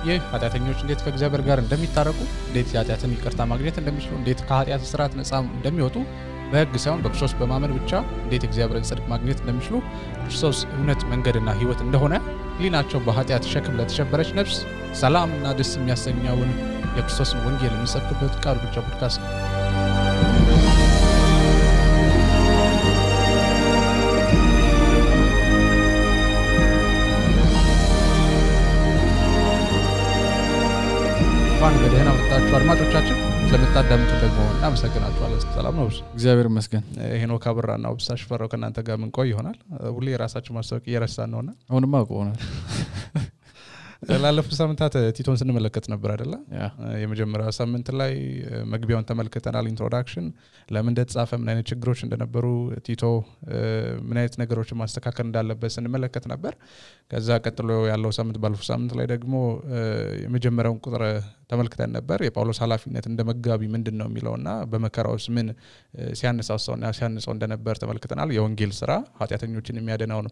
ይህ ኃጢአተኞች እንዴት ከእግዚአብሔር ጋር እንደሚታረቁ እንዴት ኃጢአትን ይቅርታ ማግኘት እንደሚችሉ እንዴት ከኃጢአት ስርዓት ነፃ እንደሚወጡ በሕግ ሳይሆን በክርስቶስ በማመን ብቻ እንዴት እግዚአብሔርን ጽድቅ ማግኘት እንደሚችሉ ክርስቶስ እውነት መንገድና ሕይወት እንደሆነ ሊናቸው በኃጢአት ሸክም ለተሸበረች ነፍስ ሰላምና ደስ የሚያሰኘውን የክርስቶስን ወንጌል የሚሰብክበት ቃል ብቻ ፖድካስት ነው። በደህና መጣችሁ አድማጮቻችን ስለምታዳምጡ ደግሞ እናመሰግናችኋለን። ሰላም ነው? እግዚአብሔር ይመስገን። ሄኖክ አብራና ወብሳሽ ፈራው ከናንተ ጋር ምን ቆይ ይሆናል። ሁሌ የራሳችን ማስተዋወቅ እየረሳን ነውና አሁንማ ቆናል። ላለፉት ሳምንታት ቲቶን ስንመለከት ነበር አይደለ? የመጀመሪያው ሳምንት ላይ መግቢያውን ተመልክተናል። ኢንትሮዳክሽን ለምን እንደተጻፈ ምን አይነት ችግሮች እንደነበሩ ቲቶ ምን አይነት ነገሮችን ማስተካከል እንዳለበት ስንመለከት ነበር። ከዛ ቀጥሎ ያለው ሳምንት ባለፈው ሳምንት ላይ ደግሞ የመጀመሪያውን ቁጥር ተመልክተን ነበር። የጳውሎስ ኃላፊነት እንደመጋቢ ምንድነው የሚለውና በመከራውስ ምን ሲያነሳሳውና ሲያነሳው እንደነበር ተመልክተናል። የወንጌል ስራ ኃጢአተኞችን የሚያድነውን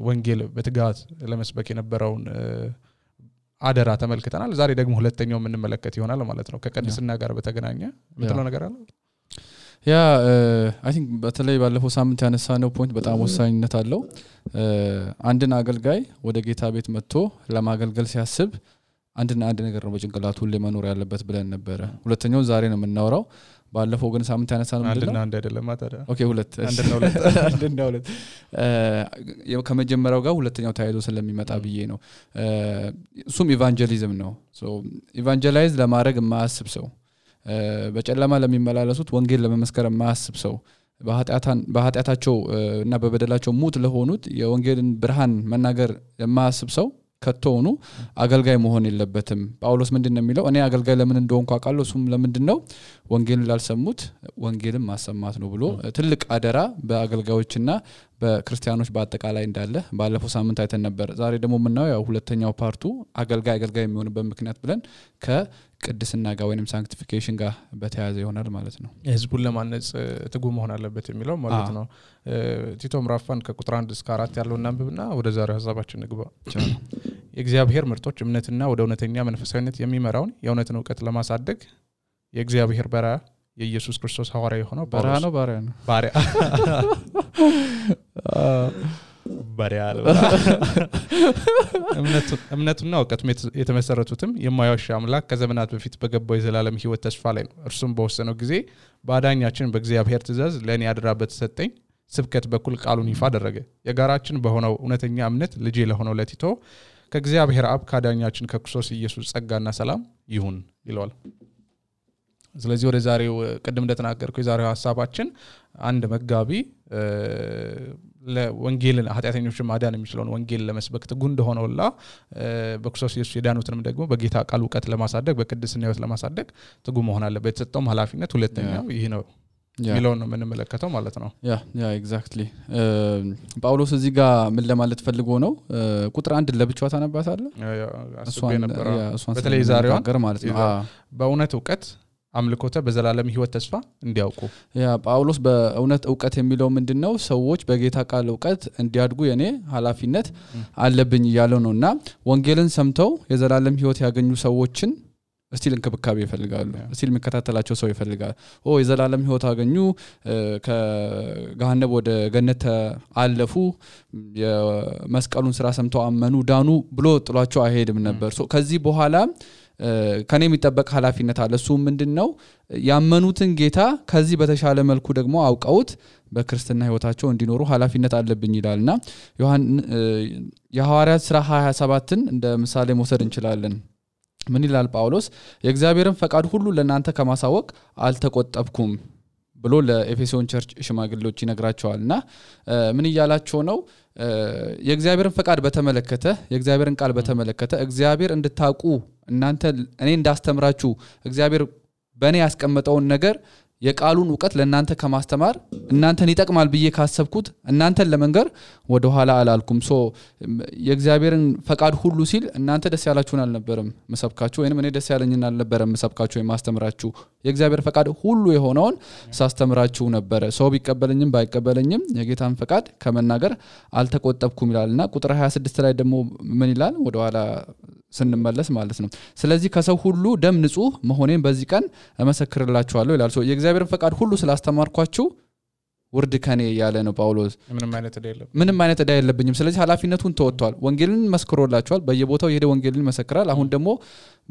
ወንጌል በትጋት ለመስበክ የነበረውን አደራ ተመልክተናል። ዛሬ ደግሞ ሁለተኛው ምን እንመለከት ይሆናል ማለት ነው። ከቅድስና ጋር በተገናኘ ምትለው ነገር አለ? አይ ቲንክ በተለይ ባለፈው ሳምንት ያነሳነው ፖይንት በጣም ወሳኝነት አለው። አንድን አገልጋይ ወደ ጌታ ቤት መጥቶ ለማገልገል ሲያስብ አንድ ነገር ነው በጭንቅላቱ ሁሌ መኖር ያለበት ብለን ነበር። ሁለተኛው ዛሬ ነው የምናወራው። ባለፈው ግን ሳምንት ያነሳነው ምንድነው? አንድ አይደለም ታዲያ። ኦኬ ሁለት ከመጀመሪያው ጋር ሁለተኛው ተያይዞ ስለሚመጣ ብዬ ነው። እሱም ኢቫንጀሊዝም ነው። ኢቫንጀላይዝ ለማድረግ የማያስብ ሰው፣ በጨለማ ለሚመላለሱት ወንጌል ለመመስከር የማያስብ ሰው፣ በኃጢአታቸው እና በበደላቸው ሙት ለሆኑት የወንጌልን ብርሃን መናገር የማያስብ ሰው ከተውኑ አገልጋይ መሆን የለበትም። ጳውሎስ ምንድነው የሚለው? እኔ አገልጋይ ለምን እንደሆንኩ አውቃለሁ፣ እሱም ለምንድነው ወንጌልን ላልሰሙት ወንጌልን ማሰማት ነው ብሎ ትልቅ አደራ በአገልጋዮችና በክርስቲያኖች በአጠቃላይ እንዳለ ባለፈው ሳምንት አይተን ነበር። ዛሬ ደግሞ ምናየው ያው ሁለተኛው ፓርቱ አገልጋይ የሚሆንበት ምክንያት ብለን ከቅድስና ጋር ወይንም ሳንክቲፊኬሽን ጋር በተያያዘ ይሆናል ማለት ነው። ህዝቡን ለማነጽ ትጉ መሆን አለበት የሚለው ማለት ነው። ቲቶ ምዕራፍ 1 ከቁጥር 1 እስከ 4 ያለውን እናንብብና ወደ ዛሬው ሐሳባችን እንግባ። የእግዚአብሔር ምርጦች እምነትና ወደ እውነተኛ መንፈሳዊነት የሚመራውን የእውነትን ዕውቀት ለማሳደግ የእግዚአብሔር ባሪያ የኢየሱስ ክርስቶስ ሐዋርያ የሆነው ባሪያ እምነቱና ዕውቀቱ የተመሰረቱትም የማያዋሽ አምላክ ከዘመናት በፊት በገባው የዘላለም ሕይወት ተስፋ ላይ ነው። እርሱም በወሰነው ጊዜ በአዳኛችን በእግዚአብሔር ትእዛዝ ለኔ አደራ በተሰጠኝ ስብከት በኩል ቃሉን ይፋ አደረገ። የጋራችን በሆነው እውነተኛ እምነት ልጅ ለሆነው ለቲቶ ከእግዚአብሔር አብ ከአዳኛችን ከክርስቶስ ኢየሱስ ጸጋና ሰላም ይሁን ይለዋል። ስለዚህ ወደ ዛሬው ቀደም እንደተናገርኩ የዛሬው ሐሳባችን አንድ መጋቢ ለወንጌልን ኃጢአተኞችን ማዳን የሚችለውን ወንጌል ለመስበክ ትጉ እንደሆነውላ በክርስቶስ ኢየሱስ የዳኑትንም ደግሞ በጌታ ቃል ዕውቀት ለማሳደግ በቅድስና ሕይወት ለማሳደግ ትጉ መሆን አለበት። የተሰጠውም ኃላፊነት ሁለተኛው ይሄ ነው ሚለውን ነው የምንመለከተው ማለት ነው። ያ ኤግዛክትሊ። ጳውሎስ እዚህ ጋር ምን ለማለት ፈልጎ ነው? ቁጥር 1 ለብቻው ታነባታለህ? እሷን ነበር በተለይ ዛሬው ነገር ማለት ነው። በእውነት ዕውቀት አምልኮተ በዘላለም ሕይወት ተስፋ እንዲያውቁ። ጳውሎስ በእውነት ዕውቀት የሚለው ምንድነው? ሰዎች በጌታ ቃል ዕውቀት እንዲያድጉ የኔ ኃላፊነት አለብኝ እያለው ነውና ወንጌልን ሰምተው የዘላለም ሕይወት ያገኙ ሰዎችን እስቲል እንክብካቤ ይፈልጋሉ። እስቲል የሚከታተላቸው ሰው ይፈልጋል። የዘላለም ሕይወት አገኙ፣ ከገሃነም ወደ ገነት አለፉ፣ የመስቀሉን ስራ ሰምተው አመኑ፣ ዳኑ ብሎ ጥሏቸው አይሄድም ነበር። ከዚህ በኋላ ከኔ የሚጠበቅ ኃላፊነት አለ። እሱ ምንድነው? ያመኑትን ጌታ ከዚህ በተሻለ መልኩ ደግሞ አውቀውት በክርስትና ሕይወታቸው እንዲኖሩ ኃላፊነት አለብኝ ይላልና የሐዋርያት ሥራ 27ን እንደ ምሳሌ መውሰድ እንችላለን። ምን ይላል ጳውሎስ? የእግዚአብሔርን ፈቃድ ሁሉ ለእናንተ ከማሳወቅ አልተቆጠብኩም ብሎ ለኤፌሶን ቸርች ሽማግሌዎች ይነግራቸዋልና ምን ይያላቸው ነው? የእግዚአብሔርን ፈቃድ በተመለከተ የእግዚአብሔርን ቃል በተመለከተ እግዚአብሔር እንድታውቁ እናንተ እኔ እንዳስተምራችሁ እግዚአብሔር በእኔ ያስቀመጠውን ነገር የቃሉን ዕውቀት ለእናንተ ከማስተማር እናንተን ይጠቅማል ብዬ ካሰብኩት እናንተን ለመንገር ወደ ኋላ አላልኩም። የእግዚአብሔርን ፈቃድ ሁሉ ሲል እናንተ ደስ ያላችሁን አልነበረም መሰብካችሁ፣ ወይንም እኔ ደስ ያለኝን አልነበረም መሰብካችሁ የማስተምራችሁ። የእግዚአብሔር ፈቃድ ሁሉ የሆነውን ሳስተምራችሁ ነበር። ሰው ቢቀበለኝም ባይቀበለኝም የጌታን ፈቃድ ከመናገር አልተቆጠብኩም ይላልና ቁጥር 26 ላይ ደግሞ ምን ይላል? ወደ ኋላ ስንመለስ ማለት ነው ስለዚህ ከሰው ሁሉ ደም ንጹህ መሆኔን በዚህ ቀን እመሰክርላችኋለሁ ይላል ሶ የእግዚአብሔርን ፈቃድ ሁሉ ስላስተማርኳችሁ ውርድ ከኔ ያለ ነው ጳውሎስ ምንም አይነት ዕዳ የለብኝም ስለዚህ ኃላፊነቱን ተወጥቷል ወንጌልን መስክሮላችኋል በየቦታው የሄደ ወንጌልን መሰክራል አሁን ደግሞ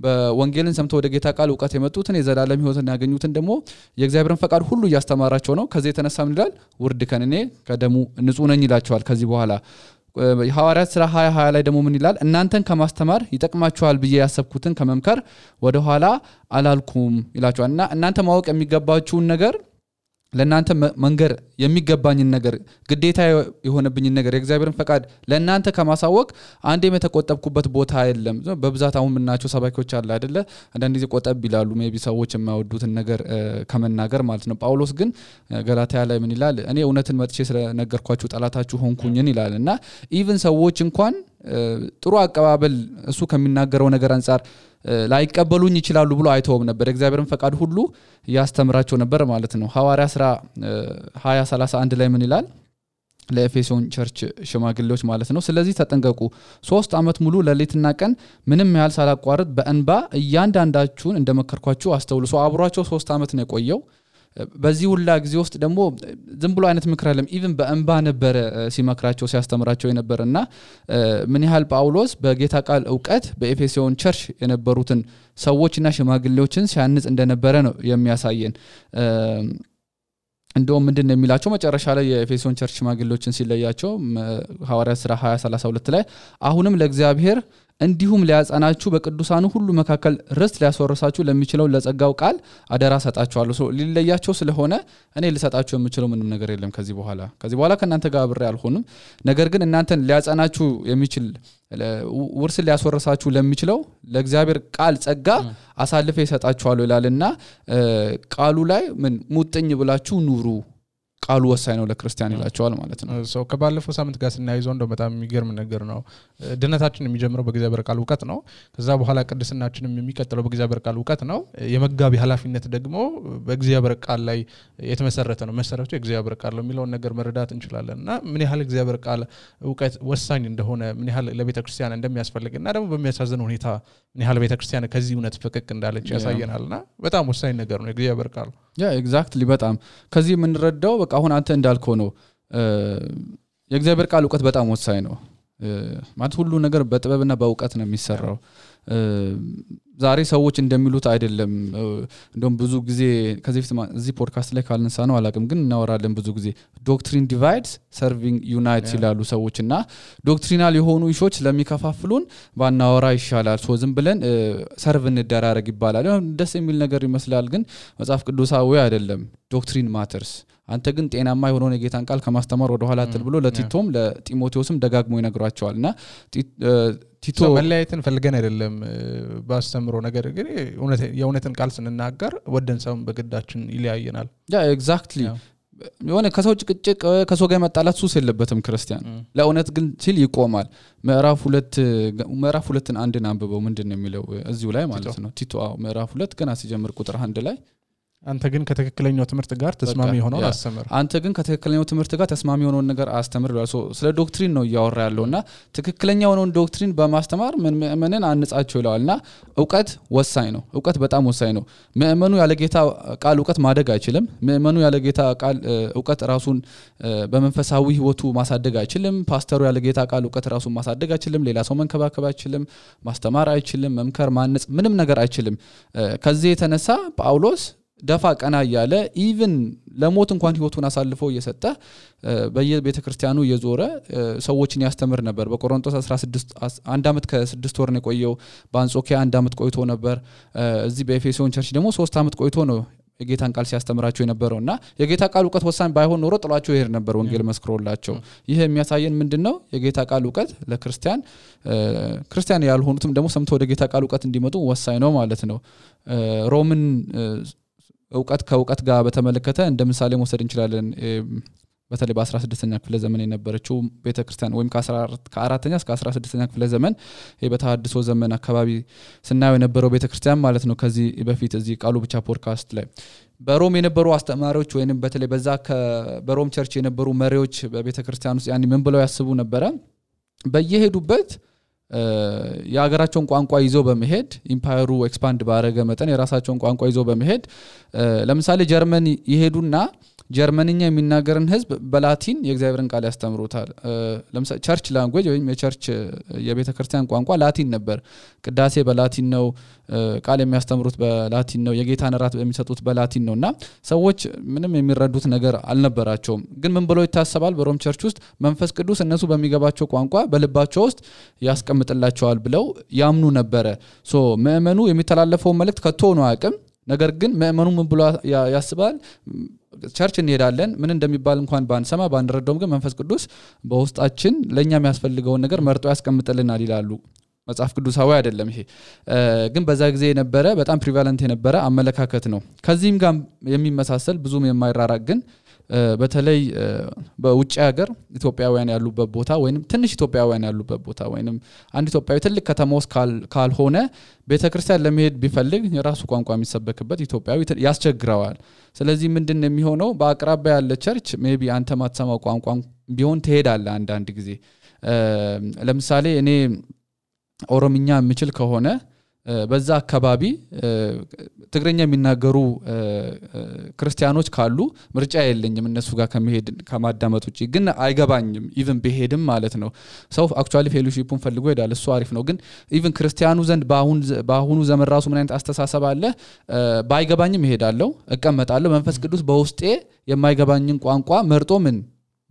በወንጌልን ሰምተው ወደ ጌታ ቃል ዕውቀት የመጡትን የዘላለም ሕይወትን ያገኙትን ደግሞ የእግዚአብሔርን ፈቃድ ሁሉ ያስተማራቸው ነው ከዚህ የተነሳ ምን ይላል ውርድ ከኔ ከደሙ ንጹህ ነኝ ይላችኋል ከዚህ በኋላ ሐዋርያት ሥራ 20 ላይ ደግሞ ምን ይላል እናንተን ከማስተማር ይጠቅማችኋል ብዬ ያሰብኩትን ከመምከር ወደ ኋላ አላልኩም ይላችኋልና እናንተ ማወቅ የሚገባችሁን ነገር ለእናንተ መንገር የሚገባኝን ነገር ግዴታ የሆነብኝን ነገር የእግዚአብሔርን ፈቃድ ለእናንተ ከማሳወቅ አንዴም የተቆጠብኩበት ቦታ የለም በብዛት አሁን ምናቸው ሰባኪዎች አለ አይደለ አንዳንድ ጊዜ ቆጠብ ይላሉ ሜቢ ሰዎች የማይወዱትን ነገር ከመናገር ማለት ነው ጳውሎስ ግን ገላትያ ላይ ምን ይላል እኔ እውነትን መጥቼ ስለነገርኳችሁ ጠላታችሁ ሆንኩኝን ይላልና ኢቭን ሰዎች እንኳን ጥሩ አቀባበል እሱ ከሚናገረው ነገር አንፃር ላይቀበሉኝ ይችላሉ ብሎ አይተውም ነበር እግዚአብሔርን ፈቃድ ሁሉ ያስተምራቸው ነበር ማለት ነው ሐዋርያ ሥራ 20:31 ላይ ምን ይላል ለኤፌሶን ቸርች ሽማግሌዎች ማለት ነው ስለዚህ ተጠንቀቁ 3 አመት ሙሉ ለሌትና ቀን ምንም ያህል ሳላቋርጥ በእንባ እያንዳንዳችሁን እንደመከርኳችሁ አስተውሉ ሶ አብሯቸው 3 አመት ነው የቆየው በዚህ ሁላ ጊዜ ውስጥ ደግሞ ዝም ብሎ አይነት ምክር አይደለም ኢቭን በእንባ ነበር ሲመክራቸው ሲያስተምራቸው የነበርና ምን ያህል ጳውሎስ በጌታ ቃል ዕውቀት በኤፌሶን ቸርች የነበሩትን ሰዎችና ሽማግሌዎችን ሲያንጽ እንደነበረ ነው የሚያሳየን እንደውም ምንድነው የሚላቸው መጨረሻ ላይ የኤፌሶን ቸርች ሽማግሌዎችን ሲለያቸው ሐዋርያት ሥራ 20:32 ላይ አሁንም ለእግዚአብሔር እንዲሁም ሊያጸናችሁ በቅዱሳኑ ሁሉ መካከል ርስት ሊያስወርሳችሁ ለሚችለው ለጸጋው ቃል አደራ ሰጣችኋለሁ ሊለያቸው ስለሆነ እኔ ልሰጣችሁ የምችለው ምንም ነገር የለም ከዚህ በኋላ ከናንተ ጋር አብሬ አልሆንም ነገር ግን እናንተን ሊያጸናችሁ የሚችል ውርስ ሊያስወርሳችሁ ለሚችለው ለእግዚአብሔር ቃል ጸጋ አሳልፈ ይሰጣችኋለሁ ይላልና ቃሉ ላይ ምን ሙጥኝ ብላችሁ ኑሩ ቃሉ ወሳኝ ነው ለክርስቲያን ይላቸዋል ማለት ነው ሶ ከባለፈው ሳምንት ጋር ስናይዘው እንደው በጣም የሚገርም ነገር ነው ድነታችን የሚጀምረው በእግዚአብሔር ቃል ዕውቀት ነው ከዛ በኋላ ቅድስናችንም የሚቀጥለው በእግዚአብሔር ቃል ዕውቀት ነው የመጋቢ ኃላፊነት ደግሞ በእግዚአብሔር ቃል ላይ የተመሰረተ ነው መሰረቱ የእግዚአብሔር ቃል ነው የሚለውን ነገር መረዳት እንችላለንና ምን ያህል እግዚአብሔር ቃል ዕውቀት ወሳኝ እንደሆነ ምን ያህል ለቤተክርስቲያን እንደሚያስፈልግና ደግሞ በሚያሳዝን ሁኔታ ምን ያህል ቤተክርስቲያን ከዚህ እውነት ፈቀቅ እንዳለች ያሳየናልና በጣም ወሳኝ ነገር ነው የእግዚአብሔር ቃል ኤግዛክትሊ በጣም ከዚህ ምን ረዳው በቃ አሁን አንተ እንዳልከው ነው የእግዚአብሔር ቃል ዕውቀት በጣም ወሳኝ ነው ማለት ሁሉ ነገር በጥበብና በዕውቀት ነው የሚሰራው ዛሬ ሰዎች እንደሚሉት አይደለም እንደውም ብዙ ጊዜ ከዚህ እዚህ ፖድካስት ላይ ካልነሳ ነው አላቅም ግን እናወራለን ብዙ ጊዜ ዶክትሪን ዲቫይድስ ሰርቪንግ ዩናይትስ ይላሉ ሰዎችና ዶክትሪናል የሆኑ ኢሾች ለሚከፋፍሉን ባናወራ ይሻላል ሶ ዝም ብለን ሰርቭ እንደራረግ ይባላል ደስ የሚል ነገር ይመስላል ግን መጽሐፍ ቅዱሳዊ አይደለም ዶክትሪን ማተርስ አንተ ግን ጤናማ የሆነውን የጌታን ቃል ከማስተማር ወደ ኋላ አትል ብሎ ለቲቶም ለጢሞቴዎስም ደጋግሞ ይነግራቸዋልና ቲቶ መለያየትን ፈልገን አይደለም ባስተምሮ ነገር ግን የእውነትን ቃል ስንናገር ወደን ሰውን በግዳችን ይለያየናል ኤግዛክትሊ የሆነ ከሰው ጭቅጭቅ ከሰው ጋር መጣላት ሱስ የለበትም ክርስቲያን ለእውነት ግን ሲል ይቆማል ምዕራፍ 2ን አንድን አንብበው ምንድነው የሚለው እዚሁ ላይ ማለት ነው ቲቶ ምዕራፍ 2 ገና ሲጀምር ቁጥር 1 ላይ አንተ ግን ከተከክለኛው ትምህርት ጋር ተስማሚ ሆነው አስተምር አንተ ግን ከተከክለኛው ትምህርት ጋር ተስማሚ ሆነው ነገር አስተምር ይላል ስለ ዶክትሪን ነው ያወራ ያለውና ተከክለኛው ነው ዶክትሪን በማስተማር ምንን አንጻቸው ይላልና ዕውቀት ወሳኝ ነው ዕውቀት በጣም ወሳኝ ነው ምእመኑ ያለ ጌታ ቃል ዕውቀት ማደግ አይችልም ምእመኑ ያለ ጌታ ቃል ዕውቀት ራሱን በመንፈሳዊ ህይወቱ ማሳደግ አይችልም ፓስተሩ ያለ ጌታ ቃል ዕውቀት ራሱን ማሳደግ አይችልም ሌላ ሰው መንከባከብ አይችልም ማስተማር አይችልም መምከር ማነጽ ምንም ነገር አይችልም ከዚህ የተነሳ ጳውሎስ ደፋ ቀና ያለ ኢቭን ለሞት እንኳን ህይወቱን አሳልፎ እየሰጠ በየቤተክርስቲያኑ እየዞረ ሰዎችን ያስተምር ነበር በቆሮንቶስ 16 1 አመት ከ6 ወር ነው የቆየው በአንጾኪያ 1 አመት ቆይቶ ነበር እዚህ በኤፌሶን ቸርች ደግሞ 3 አመት ቆይቶ ነው የጌታን ቃል ሲያስተምራቸው የነበረውና የጌታ ቃል ዕውቀት ወሳኝ ባይሆን ኖሮ ጥሏቸው ይሄድ ነበር ወንጌል መስክሮላቸው ይሄ የሚያሳየን ምንድነው የጌታ ቃል ዕውቀት ለክርስቲያን ያልሆኑትም ደግሞ ሰምተው ወደ ጌታ ቃል ዕውቀት እንዲመጡ ወሳኝ ነው ማለት ነው ሮምን ዕውቀት ከዕውቀት ጋር በተመለከተ እንደ ምሳሌ መውሰድ እንችላለን በተለይ በ16ኛ ክፍለ ዘመን የነበረችው ቤተክርስቲያን ወይም ከ4ኛ እስከ 16ኛ ክፍለ ዘመን በተሐድሶ ዘመን አካባቢ ስናየው የነበረው ቤተክርስቲያን ማለት ነው ከዚህ በፊት እዚህ ቃሉ ብቻ ፖድካስት ላይ በሮም የነበሩ አስተማሪዎች ወይንም በተለይ በዛ በሮም ቸርች የነበሩ መሪዎች በቤተክርስቲያን ውስጥ ያኒ ምን ብለው ያስቡ ነበር በየሄዱበት የሀገራቸውን ቋንቋ ይዘው በመሄድ ኢምፓየሩ ኤክስፓንድ ባረገ መጠን የራሳቸውን ቋንቋ ይዘው በመሄድ ለምሳሌ ጀርመን ይሄዱና ጀርመንኛ የሚናገርን ህዝብ በላቲን የእግዚአብሔርን ቃል ያስተምሩታል ለምሳሌ ቸርች ላንጉዌጅ ወይም የቸርች የቤተክርስቲያን ቋንቋ ላቲን ነበር ቅዳሴ በላቲን ነው ቃል የሚያስተምሩት በላቲን ነው የጌታን ራት የሚሰጡት በላቲን ነውና ሰዎች ምንም የሚረዱት ነገር አልነበራቸውም ግን ምን ብለው ይታሰባል በሮም ቸርች ውስጥ መንፈስ ቅዱስ እነሱ በሚገባቸው ቋንቋ በልባቸው ውስጥ ያስቀምጥላቸዋል ብለው ያምኑ ነበር ሶ ምእመኑ የሚተላለፈው መልእክት ከቶ ነው አቅም ነገር ግን ምእመኑ ምን ብሎ ያስባል ቸርች እንሄዳለን ምን እንደሚባል እንኳን ባንሰማ ባንረዳውም ግን መንፈስ ቅዱስ በውስጣችን ለኛ የሚያስፈልገው ነገር መርጦ ያስቀምጥልናል ይላሉ መጽሐፍ ቅዱሳዊ አይደለም ይሄ ግን በዛ ጊዜ የነበረ በጣም ፕሪቫለንት የነበረ አመለካከት ነው ከዚህም ጋር የሚመሳሰል ብዙም የማይራራቅ ግን በተለይ በውጭ ሀገር ኢትዮጵያውያን ያሉበት ቦታ ወይንም ትንሽ ኢትዮጵያውያን ያሉበት ቦታ ወይንም አንድ ኢትዮጵያዊ ትልቅ ከተማ ውስጥ ካልሆነ ቤተክርስቲያን ለመሄድ ቢፈልግ የራሱ ቋንቋ የሚሰበክበት ኢትዮጵያዊ ያስቸግረዋል ስለዚህ ምንድነው የሚሆነው በአቅራቢያ ያለ ቸርች ሜቢ አንተ ማትሰማው ቋንቋ ቢሆን ትሄዳለህ አንድ ጊዜ ለምሳሌ እኔ ኦሮምኛ የምችል ከሆነ በዛ አካባቢ ትግረኛ የሚናገሩ ክርስቲያኖች ካሉ ምርጫ የለኝም እነሱ ጋር ከመሄድ ከማዳመጥ ውጪ ግን አይገባኝም ኢቭን በሄድም ማለት ነው ሰው አክቹአሊ ፌሎሺፑን ፈልጎ ይዳል እሱ አሪፍ ነው ግን ኢቭን ክርስቲያኑ ዘንድ ባሁኑ ዘመን ራሱ ምን አይነት አስተሳሰብ አለ ባይገባኝም ይሄዳለው እቀመጣለሁ መንፈስ ቅዱስ በውስጤ የማይገባኝን ቋንቋ መርጦ ምን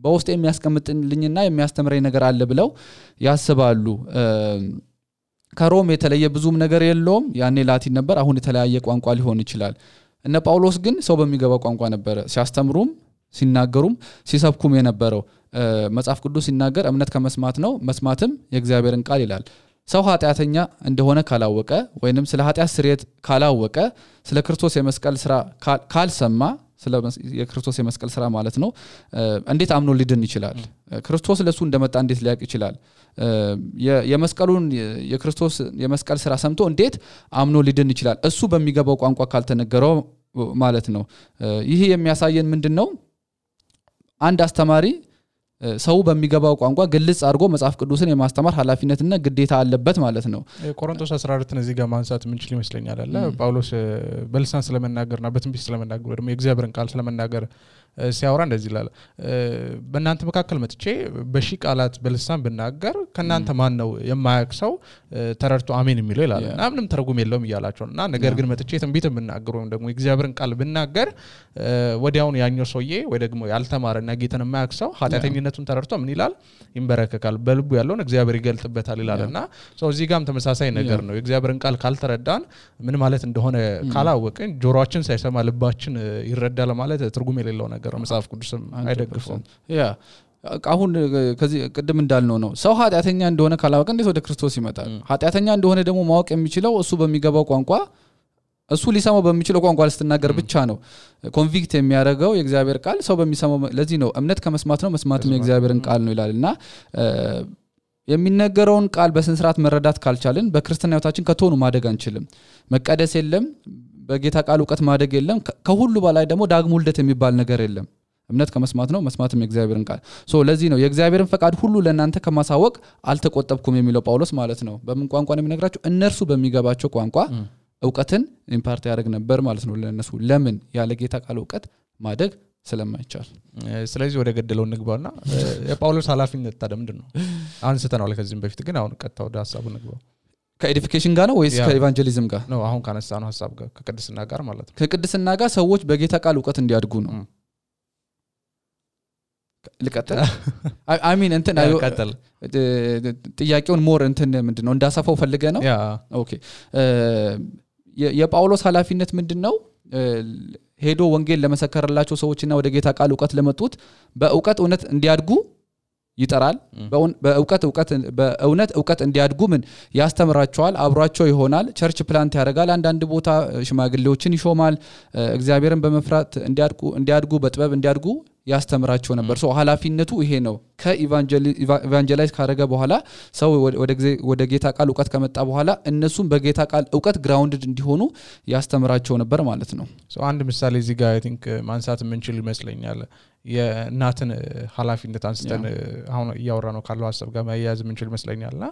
በውስጤ የሚያስቀምጥልኝና የሚያስተምረኝ ነገር አለ ብለው ያስባሉ ከሮም የተለየ ብዙም ነገር የለውም ያኔ ላቲን ነበር አሁን የተለያየ ቋንቋ ሊሆን ይችላል እነ ጳውሎስ ግን ሰው በሚገባው ቋንቋ ነበር ሲያስተምሩም ሲናገሩም ሲሰብኩም የነበረው መጽሐፍ ቅዱስ ሲናገር እምነት ከመስማት ነው መስማትም የእግዚአብሔርን ቃል ይላል ሰው ኃጢአተኛ እንደሆነ ካላወቀ ወይንም ስለ ኃጢአት ስርየት ካላወቀ ስለ ክርስቶስ የመስቀል ስራ ካልሰማ ስለ የክርስቶስ የመስቀል ስራ ማለት ነው እንዴት አምኖ ሊድን ይችላል ክርስቶስ ለሱ እንደመጣ እንዴት ሊያውቅ ይችላል የመስቀሉን የክርስቶስ የመስቀል ስራ ሰምቶ እንዴት አምኖ ሊድን ይችላል እሱ በሚገባው ቋንቋ ካልተነገረው ማለት ነው ይሄ የሚያሳየን ምንድነው አንድ አስተማሪ ሰው በሚገባው ቋንቋ ግልጽ አድርጎ መጽሐፍ ቅዱስን የማስተማር ኃላፊነትና ግዴታ አለበት ማለት ነው ቆሮንቶስ 14 እዚህ ጋር ማንሳት ምን ይችላል ይመስለኛል አለ ጳውሎስ በልሳን ስለመናገርና በትንቢት ስለመናገር ደግሞ የእግዚአብሔርን ቃል ስለመናገር ሲያወራ እንደዚህ ይላል በእናንተ መካከል መጥቼ በሺ ቃላት በልሳን ብናገር ከናንተ ማን ነው የማያክሰው ተረርቶ አሜን የሚለው ይላል እና ምንም ተርጉም የለውም ይያላቸውና ነገር ግን መጥቼ ትንቢት ብናገር ወይም ደግሞ የእግዚአብሔርን ቃል ብናገር ወዲያውን ያኛው ሰውዬ ወይ ደግሞ ያልተማረና ጌታን የማያክሰው ኃጢአተኝነቱን ተረርቶ ምን ይላል ይንበረከካል በልቡ ያለውን እግዚአብሔር ይገልጥበታል ይላልና ሰው እዚህ ጋርም ተመሳሳይ ነገር ነው የእግዚአብሔርን ቃል ካልተረዳን ምን ማለት እንደሆነ ካላወቅን ጆሮአችን ሳይሰማ ልባችን ይረዳል ማለት ትርጉም የሌለው ነገር መጽሐፍ ቅዱስም አይደግፈውም ያ አሁን ከዚህ ቅድም እንዳልነው ነው ሰው ኃጢአተኛ እንደሆነ ካላወቀ እንዴት ወደ ክርስቶስ ይመጣል ኃጢአተኛ እንደሆነ ደግሞ ማወቅ የሚችለው እሱ በሚገባው ቋንቋ እሱ ሊሰማው በሚችለው ቋንቋ ልስተናገር ብቻ ነው ኮንቪክት የሚያደርገው የእግዚአብሔር ቃል ሰው በሚሰማው ለዚህ ነው እምነት ከመስማት ነው መስማትም የእግዚአብሔርን ቃል ነው ይላልና የሚነገረውን ቃል በስነ ስርዓት መረዳት ካልቻልን በክርስቲያና ህይወታችን ከቶኑ ማደግ አንችልም መቀደስ የለም በጌታ ቃል ዕውቀት ማደግ የለም ከሁሉ በላይ ደግሞ ዳግም ውልደት የሚባል ነገር የለም እምነት ከመስማት ነው መስማትም የእግዚአብሔርን ቃል ሶ ለዚህ ነው የእግዚአብሔርን ፈቃድ ሁሉ ለእናንተ ከማሳወቅ አልተቆጠብኩም የሚለው ጳውሎስ ማለት ነው በምን ቋንቋ ነው የሚነግራቸው እነርሱ በሚገባቸው ቋንቋ ዕውቀትን ኢምፓርት ያደርግ ነበር ማለት ነው ለነሱ ለምን ያለ ጌታ ቃል ዕውቀት ማደግ ስለማይቻል ስለዚህ ወደ ገደለው ንግባውና የጳውሎስ ኃላፊነት ታዲያ ምንድነው አንስተናል ከዚህም በፊት ግን አሁን ቀጣው ወደ ሐሳቡ ንግባው ከኤዲፊኬሽን ጋር ነው ወይስ ከኢቫንጀሊዝም ጋር ነው አሁን ካነሳነው ሐሳብ ጋር ከቅድስና ጋር ማለት ነው ከቅድስና ጋር ሰዎች በጌታ ቃል ዕውቀት እንዲያድጉ ነው ልቀጥል አይ ሚን እንትን አዩ ጥያቄውን ሞር እንትን ምንድነው እንዳሳፈው ፈልገ ነው ኦኬ የጳውሎስ ኃላፊነት ምንድነው ሄዶ ወንጌል ለመሰከረላቸው ሰዎችና ወደ ጌታ ቃል ዕውቀት ለመጡት በዕውቀት እውነት እንዲያድጉ ይጠራል በእውነት ዕውቀት እንዲያድጉ ምን ያስተምራቸዋል አብሯቸው ይሆናል ቸርች ፕላንት ያደርጋል አንዳንድ ቦታ ሽማግሌዎችን ይሾማል እግዚአብሔርን በመፍራት እንዲያድጉ በጥበብ እንዲያድጉ ያስተምራቸው ነበር ሶ ኃላፊነቱ ይሄ ነው ከኢቫንጀላይዝ ካረገ በኋላ ሰው ወደ ጌታ ቃል ዕውቀት ከመጣ በኋላ እነሱም በጌታ ቃል ዕውቀት ግራውንድድ እንዲሆኑ ያስተምራቸው ነበር ማለት ነው ሶ አንድ ምሳሌ እዚህ ጋር አይ ቲንክ ማንሳት ምንችል ይመስለኛል የእናትን ኃላፊነት አንስተን አሁን ያወራ ነው ካለው ሐሳብ ጋር ማያያዝ ምንችል መስለኛልና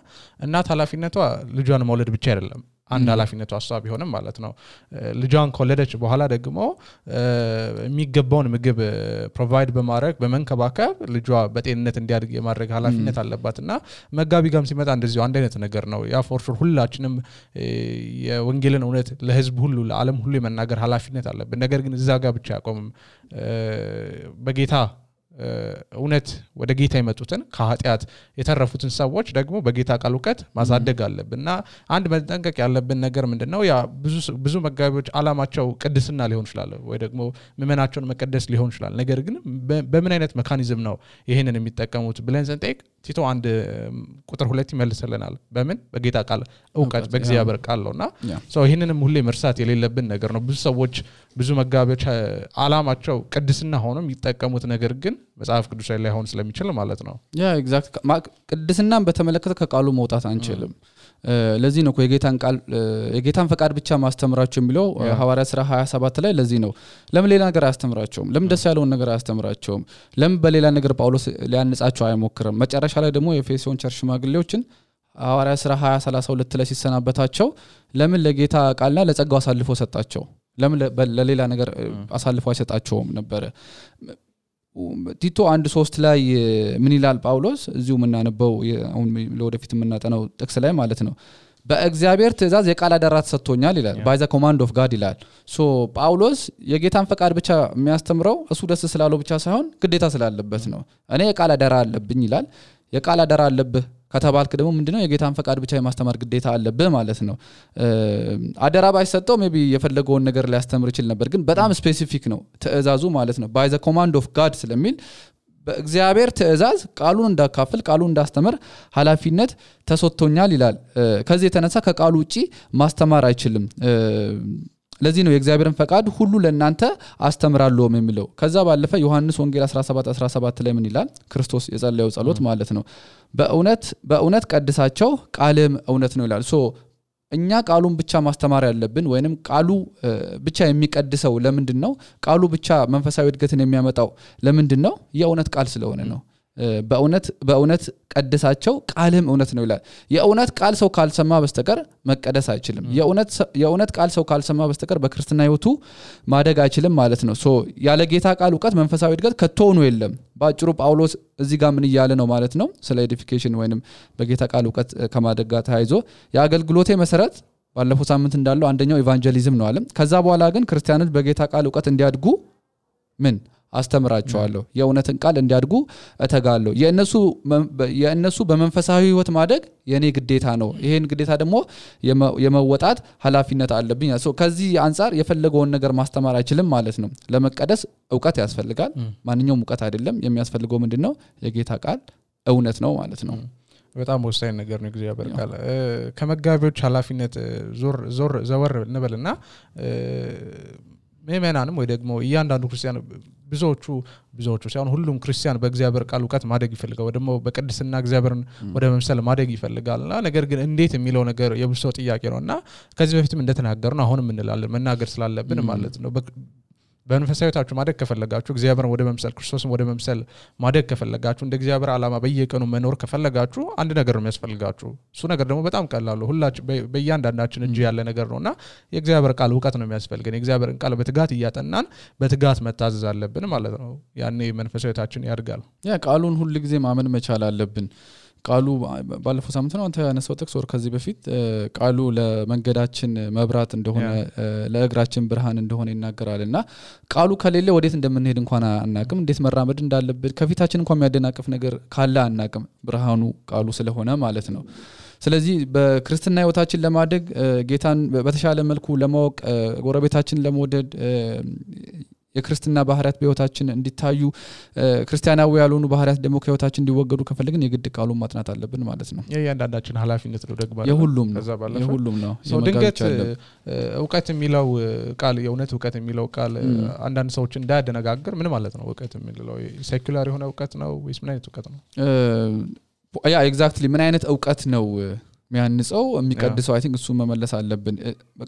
እናት ኃላፊነቷ ልጇን መውለድ ብቻ አይደለም አንድ ኃላፊነቷ ሐሳብ ቢሆንም ማለት ነው ልጇን ከወለደች በኋላ ደግሞ የሚገባውን ምግብ ፕሮቫይድ በማድረግ በመንከባከብ ልጇ በጤንነት እንዲያድግ የማድረግ ኃላፊነት አለባትና መጋቢ ጋርም ሲመጣ እንደዚህ አንድ አይነት ነገር ነው ያ ፎር ሹር ሁላችንም የወንጌልን እውነት ለህዝብ ሁሉ ለዓለም ሁሉ የመናገር ኃላፊነት አለብን ነገር ግን እዛ ጋር ብቻ ያቆምም በጌታ እውነት ወደ ጌታ የመጡትን ከኃጢያት የተረፉትን ሰዎች ደግሞ በጌታ ቃል ዕውቀት ማሳደግ አለብንና አንድ መጠንቀቅ ያለብን ነገር ምንድነው ያ ብዙ መጋቢዎች ዓላማቸው ቅድስና ሊሆን ይችላል ወይ ደግሞ ምመናቸውን መቀደስ ሊሆን ይችላል ነገር ግን በምን አይነት ሜካኒዝም ነው ይሄንን የሚጠቀሙት ብለን ስንጠይቅ ቲቶ አንድ ቁጥር 2 ይመልስልናል በምን በጌታ ቃል ዕውቀት በእግዚአብሔር ቃል ነውና ሶ ይሄንንም ሁሌ መርሳት የሌለብን ነገር ነው ብዙ ሰዎች ብዙ መጋቢዎች ዓላማቸው ቅድስና ሆኖም ይጠቀሙት ነገር ግን መጽሐፍ ቅዱሳዊ ላይ ሆን ስለሚችል ማለት ነው ያ ኤግዛክት ቅድስናን በተመለከተ ከቃሉ መውጣት አንችልም ለዚህ ነው የጌታን ፈቃድ ብቻ ማስተምራቸው የሚለው ሐዋርያ ሥራ 27 ላይ ለዚህ ነው ለምን ሌላ ነገር አያስተምራቸውም ለምን ደስ ያለውን ነገር አያስተምራቸውም ለምን በሌላ ነገር ጳውሎስ ሊያነጻቸው አይሞክርም መጨረሻ ላይ ደግሞ የኤፌሶን ቸርች ሽማግሌዎችን ሐዋርያ ሥራ 20:32 ላይ ሲሰናበታቸው ለምን ለጌታ ቃልና ለጸጋው አሳልፎ ሰጣቸው ለምን ለሌላ ነገር አሳልፎ አይሰጣቸውም ነበር ቲቶ 1:3 ላይ ምን ይላል ጳውሎስ እዚሁ ምናነበው አሁን ለወደፊት ምናጠናው ጥቅስ ላይ ማለት ነው በእግዚአብሔር ትእዛዝ የቃል አደራ ተሰጥቶኛል ይላል by the command of God ይላል ሶ ጳውሎስ የጌታን ፈቃድ ብቻ የሚያስተምረው እሱ ደስ ስላለው ብቻ ሳይሆን ግዴታ ስላለበት ነው እኔ የቃል አደራ አለብኝ ይላል የቃል አደራ አለብህ ከተባልክ ደግሞ ምንድነው የጌታን ፈቃድ ብቻ የማስተማር ግዴታ አለብህ ማለት ነው አደራ ባይሰጠው ሜቢ የፈለገውን ነገር ሊያስተምር ይችላል ነበር ግን በጣም ስፔሲፊክ ነው ትእዛዙ ማለት ነው by the command of God ስለሚል በእግዚአብሔር ትእዛዝ ቃሉን እንዳካፍል ቃሉን እንዳስተምር ኃላፊነት ተሰጥቶኛል ይላል ከዚህ የተነሳ ከቃሉ ውጪ ማስተማር አይችልም ለዚህ ነው የእግዚአብሔርን ፈቃድ ሁሉ ለእናንተ አስተምራለሁ የሚለው ከዛ ባለፈ ዮሐንስ ወንጌል 17:17 ላይ ምን ይላል ክርስቶስ የጸለየው ጸሎት ማለት ነው በእውነት ቀድሳቸው ቃልም እውነት ነው ይላል ሶ እኛ ቃሉን ብቻ ማስተማር ያለብን ወይንም ቃሉ ብቻ የሚቀድሰው ለምንድነው ቃሉ ብቻ መንፈሳዊ እድገትን የሚያመጣው ለምንድነው የእውነት ቃል ስለሆነ ነው በእውነት ቀድሳቸው ቃልም እውነት ነው ይላል የእውነት ቃል ሰው ካልሰማ በስተቀር መቀደስ አይችልም የእውነት ቃል ሰው ካልሰማ በስተቀር በክርስቲና ህይወቱ ማደግ አይችልም ማለት ነው ሶ ያለ ጌታ ቃል ዕውቀት መንፈሳዊ እድገት ከቶኑ የለም ባጭሩ ጳውሎስ እዚህ ጋር ምን ይያለ ነው ማለት ነው ስለ ኤዲፊኬሽን ወይንም በጌታ ቃል ዕውቀት ከማደግ ጋር ተያይዞ የአገልግሎቴ መሰረት ባለፈው ሳምንት እንዳለው አንደኛው ኢቫንጀሊዝም ነው አለ ከዛ በኋላ ግን ክርስቲያኖች በጌታ ቃል ዕውቀት እንዲያድጉ ምን አስተምራቸዋለሁ የእውነትን ቃል እንዲያድጉ እተጋለሁ የእነሱ በመንፈሳዊ ህይወት ማደግ የኔ ግዴታ ነው ይሄን ግዴታ ደግሞ የመወጣት ኃላፊነት አለብኝ ሶ ከዚህ አንፃር የፈለገውን ነገር ማስተማር አይችልም ማለት ነው ለመቀደስ ዕውቀት ያስፈልጋል ማንኛውም ዕውቀት አይደለም የሚያስፈልገው ምንድነው የጌታ ቃል እውነት ነው ማለት ነው በጣም ወሳኝ ነገር ነው እግዚአብሔር ቃል ከመጋቢዎች ኃላፊነት ዘወር እንበልና ምእመናንም ወይ ደግሞ እያንዳንዱ ክርስቲያን ብዙዎቹ ሳይሆን ሁሉም ክርስቲያን በእግዚአብሔር ቃል ዕውቀት ማደግ ይፈልጋል ወይ ደግሞ በቅድስና እግዚአብሔርን ወደ መምሰል ማደግ ይፈልጋልና ነገር ግን እንዴት የሚለው ነገር የብዙ ጥያቄ ነውና ከዚህ በፊትም እንደተናገርነው አሁንም እንላለን መናገር ስላለብን ማለት ነው በመንፈሳዊታችሁ ማደግ ከፈለጋችሁ እግዚአብሔርን ወደ መምሰል ክርስቶስን ወደ መምሰል ማደግ ከፈለጋችሁ እንደ እግዚአብሔር ዓላማ በየቀኑ መኖር ከፈለጋችሁ አንድ ነገር ነው የሚያስፈልጋችሁ እሱ ነገር ደግሞ በጣም ቀላል ነው ሁላችን በእያንዳንዳችን እጅ ያለ ነገር ነውና የእግዚአብሔር ቃል ዕውቀት ነው የሚያስፈልገን የእግዚአብሔርን ቃል በትጋት እያጠናን በትጋት መታዘዝ አለብን ማለት ነው ያኔ መንፈሳዊታችን ያድጋል ያ ቃሉን ሁሉ ጊዜ ማመን መቻል አለብን ቃሉ ባለፈው ሳምንት ነው አንተ ያነሳው ጥቅስ ወር ከዚህ በፊት ቃሉ ለመንገዳችን መብራት እንደሆነ ለእግራችን ብርሃን እንደሆነ ይናገራልና ቃሉ ከሌለ ወዴት እንደምንሄድ እንኳን አናቅም እንዴት መራመድ እንዳለብን ከፊታችን እንኳን የሚያደናቅፍ ነገር ካለ አናቅም ብርሃኑ ቃሉ ስለሆነ ማለት ነው ስለዚህ በክርስትና ህይወታችን ለማደግ ጌታን በተሻለ መልኩ ለማወቅ ጎረቤታችን ለመወደድ የክርስትና ባህሪያት በህይወታችን እንዲታዩ ክርስቲያናዊ ያልሆኑ ባህሪያት ደግሞ ከህይወታችን እንዲወገዱ ከፈለግን የግድ ቃሉን ማጥናት አለብን ማለት ነው የእያንዳንዳችን ኃላፊነት ነው ደግሞ የሁሉም ነው ድንገት ዕውቀት የሚለው ቃል የእውነት ዕውቀት የሚለው ቃል አንዳንድ ሰዎች እንዳያደነጋግር ምን ማለት ነው ዕውቀት የሚለው ሴኩላር የሆነ ዕውቀት ነው ወይስ ምን አይነት ዕውቀት ነው ያ ኤግዛክትሊ ምን አይነት ዕውቀት ነው የሚያንጸው የሚቀድሰው አይ ቲንክ እሱ መመለስ አለብን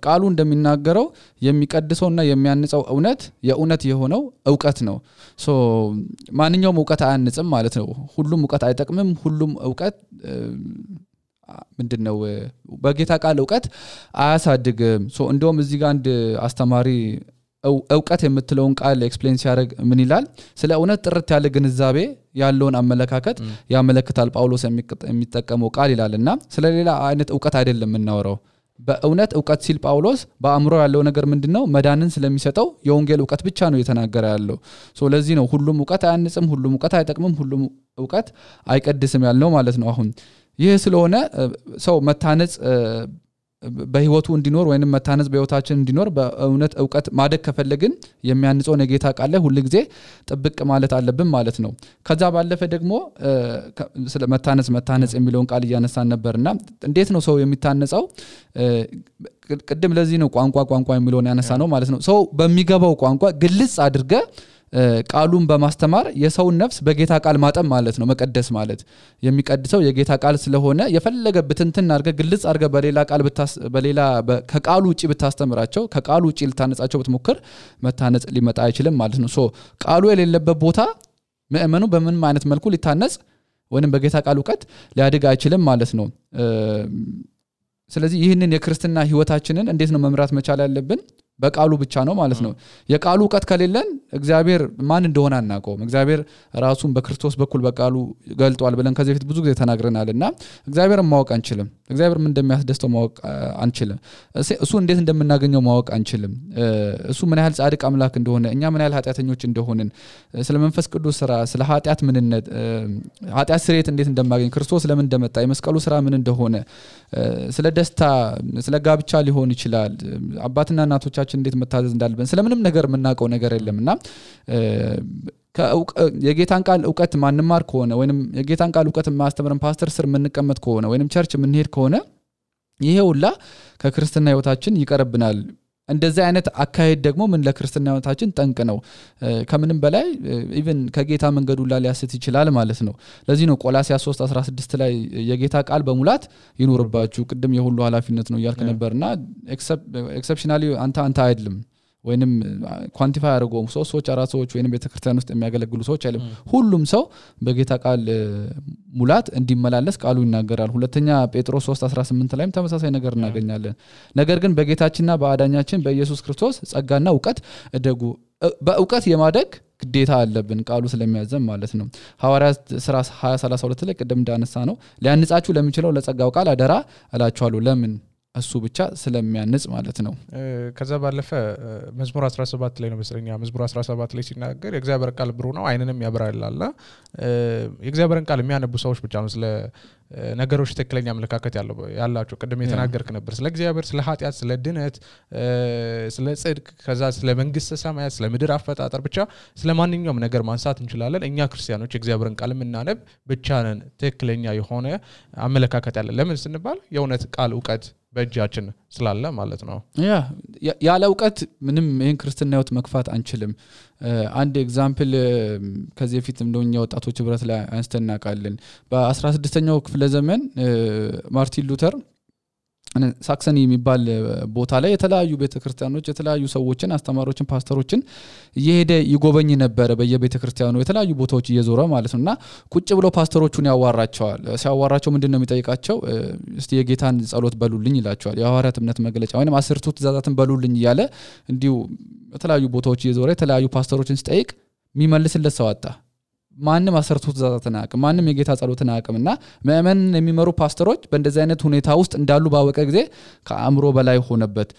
ቃሉ እንደሚናገረው የሚቀድሰውና የሚያንጸው የእውነት የሆነው ዕውቀት ነው ሶ ማንኛውም ዕውቀት አያንጽም ማለት ነው ሁሉም ዕውቀት አይጠቅምም ሁሉም ዕውቀት ምንድነው በጌታ ቃል ዕውቀት አያሳድግም ሶ እንደውም እዚህ ጋር አንድ አስተማሪ ዕውቀት የምትለውን ቃል ኤክስፕሌን ሲያደርግ ምን ይላል ስለ እውነት ጥርት ያለ ግንዛቤ ያለውን አመለካከት ያመለክታል ጳውሎስ የሚጠቀመው ቃል ይላልና ስለሌላ አይነት ዕውቀት አይደለም እናወራው በእውነት ዕውቀት ሲል ጳውሎስ በአእምሮ ያለው ነገር ምንድነው መዳንን ስለሚሰጠው የወንጌል ዕውቀት ብቻ ነው የተናገረ ያለው ሶ ለዚህ ነው ሁሉም ዕውቀት አያንጽም ሁሉም ዕውቀት አይጠቅምም ሁሉም ዕውቀት አይቀድስም ያልነው ማለት ነው አሁን ይህ ስለሆነ ሰው መታነጽ በህይወቱ እንዲኖር ወይንም መታነጽ በህይወታችን እንዲኖር በእውነት ዕውቀት ማደግ ከፈለግን የሚያንጸው የጌታ ቃል ላይ ሁሉ ጊዜ ጥብቅ ማለት አለብን ማለት ነው ከዛ ባለፈ ደግሞ ስለ መታነጽ የሚለውን ቃል እያነሳን ነበርና እንዴት ነው ሰው የሚታነጸው ቅድም ለዚህ ነው ቋንቋ የሚለውን ያነሳ ነው ማለት ነው ሰው በሚገባው ቋንቋ ግልጽ አድርገ ቃሉን በማስተማር የሰውን ነፍስ በጌታ ቃል ማጠም ማለት ነው መቀደስ ማለት የሚቀድሰው የጌታ ቃል ስለሆነ የፈለገ ብትንትን አድርገ ግልጽ አድርገ በሌላ ከቃሉ ውጪ ብታስተምራቸው ከቃሉ ውጪ ልታነጻቸው ብትሞክር መታነጽ ሊመጣ አይችልም ማለት ነው ሶ ቃሉ የሌለበት ቦታ ምእመኑ በምን አይነት መልኩ ሊታነጽ ወይንም በጌታ ቃል ዕውቀት ሊያድግ አይችልም ማለት ነው ስለዚህ ይህንን የክርስትና ህይወታችንን እንዴት ነው መምራት መቻል ያለብን በቃሉ ብቻ ነው ማለት ነው የቃሉ ዕውቀት ከሌለን እግዚአብሔር ማን እንደሆነ አናውቀውም እግዚአብሔር ራሱን በክርስቶስ በኩል በቃሉ ገልጧል ብለን ከዚህ በፊት ብዙ ጊዜ ተናግረናልና እግዚአብሔርን ማወቅ አንችልም እግዚአብሔር ምን እንደሚያስደስተው ማወቅ አንችልም እሱ እንዴት እንደምናገኘው ማወቅ አንችልም እሱ ምን ያህል ጻድቅ አምላክ እንደሆነ እኛ ምን ያህል ኃጢያተኞች እንደሆነን ስለ መንፈስ ቅዱስ ስራ ስለ ኃጢያት ምንነት ኃጢያት ስርየት እንዴት እንደማገኝ ክርስቶስ ለምን እንደመጣ የመስቀሉ ስራ ምን እንደሆነ ስለ ደስታ ስለ ጋብቻ ሊሆን ይችላል አባትና እናቶቻችን እንዴት መታዘዝ እንዳለብን ስለምንም ነገር የምናውቀው ነገር የለምና የጌታን ቃል ዕውቀት ማንማር ከሆነ ወይንም የጌታን ቃል ዕውቀት ማስተምረን ፓስተር ስር ምንቀመጥ ከሆነ ወይንም ቸርች ምንሄድ ከሆነ ይሄ ሁላ ከክርስትና ህይወታችን ይቀርብናል እንደዚህ አይነት አካሄድ ደግሞ ምን ለክርስትና ህይወታችን ጠንቅ ነው ከምንም በላይ ኢቭን ከጌታ መንገዱ ላይ ሊያስት ይችላል ማለት ነው ለዚህ ነው ቆላስይስ 3:16 ላይ የጌታ ቃል በሙላት ይኖርባችሁ ቅድም የሁሉ ኃላፊነት ነው ይያልከ ነበርና ኤክሰፕሽናሊ አንተ አይደለም ወይንም ኳንቲፋይ አድርጎም ሰዎች አራት ሰዎች ወይንም ቤተክርስቲያን ውስጥ የሚያገለግሉ ሰዎች አይደለም ሁሉም ሰው በጌታ ቃል ሙላት እንዲመላለስ ቃሉ ይናገራል ሁለተኛ ጴጥሮስ 3:18 ላይም ተመሳሳይ ነገር እናገኛለን ነገር ግን በጌታችንና በአዳኛችን በኢየሱስ ክርስቶስ ጸጋና ዕውቀት እደጉ በዕውቀት የማደግ ግዴታ አለብን ቃሉ ስለሚያዘም ማለት ነው ሐዋርያት ሥራ 20:32 ላይ ቀደም እንዳነሳ ነው ሊያንጻችሁ ለሚችለው ለጸጋው ቃል አደራ እላችኋለሁ ለምን እሱ ብቻ ስለሚያንጽ ማለት ነው ከዛ ባለፈ መዝሙር 17 ላይ ነው መስለኛ መዝሙር 17 ላይ ሲናገር የእግዚአብሔር ቃል ብሩህ ነው አይንንም ያበራላልና የእግዚአብሔርን ቃል የሚያነቡ ሰዎች ብቻ ነው ስለ ነገሮች ተክለኛ አመለካከት ያላቸው ቀደም የተናገርክ ነበር ስለ እግዚአብሔር ስለ ኃጢያት ስለ ድነት ስለ ጽድቅ ከዛ ስለ መንግስተ ሰማያት ስለ ምድር አፈጣጠር ብቻ ስለ ማንኛውም ነገር ማንሳት እንችላለን እኛ ክርስቲያኖች የእግዚአብሔርን ቃል እናነብ ብቻ ነን ተክለኛ የሆነ አመለካከት ያለ ለምን ስንባል የእውነት ቃል ዕውቀት በእጃችን ስላለ ማለት ነው ያለ ዕውቀት ምንም ይሄን ክርስትና ህይወት መክፋት አንችልም አንድ ኤግዛምፕል ከዚህ በፊት እንደኛ ወጣቶች ህብረት ላይ አንስተናቃለን በ16ኛው ክፍለ ዘመን ማርቲን ሉተር ሳክሰኒ የሚባል ቦታ ላይ የተለያዩ ቤተክርስቲያኖች የተለያዩ ሰዎችን አስተማሪዎችን ፓስተሮችን እየሄደ ይጎበኝ ነበር በየቤተክርስቲያኑ የተለያዩ ቦታዎች እየዞረ ማለት ነውና ቁጭ ብሎ ፓስተሮቹን ያዋራቸዋል ሲያዋራቸው ምንድነው የሚጠይቃቸው እስቲ የጌታን ጸሎት በሉልኝ ይላቸዋል የሐዋርያት እምነት መግለጫ ወይንም 10ቱ ትእዛዛትን በሉልኝ ይያለ እንዲሁ የተለያዩ ቦታዎች እየዞረ የተለያዩ ፓስተሮችን ሲጠይቅ የሚመልስለት ሰው አጣ ማንንም 10ቱ ትእዛዛትን አያውቅም ማንንም የጌታ ጸሎትን አያውቅምና ምእመን የሚመሩ ፓስተሮች በእንደዚህ አይነት ሁኔታ ውስጥ እንዳሉ ባወቀ ጊዜ ከአእምሮ በላይ ሆነበት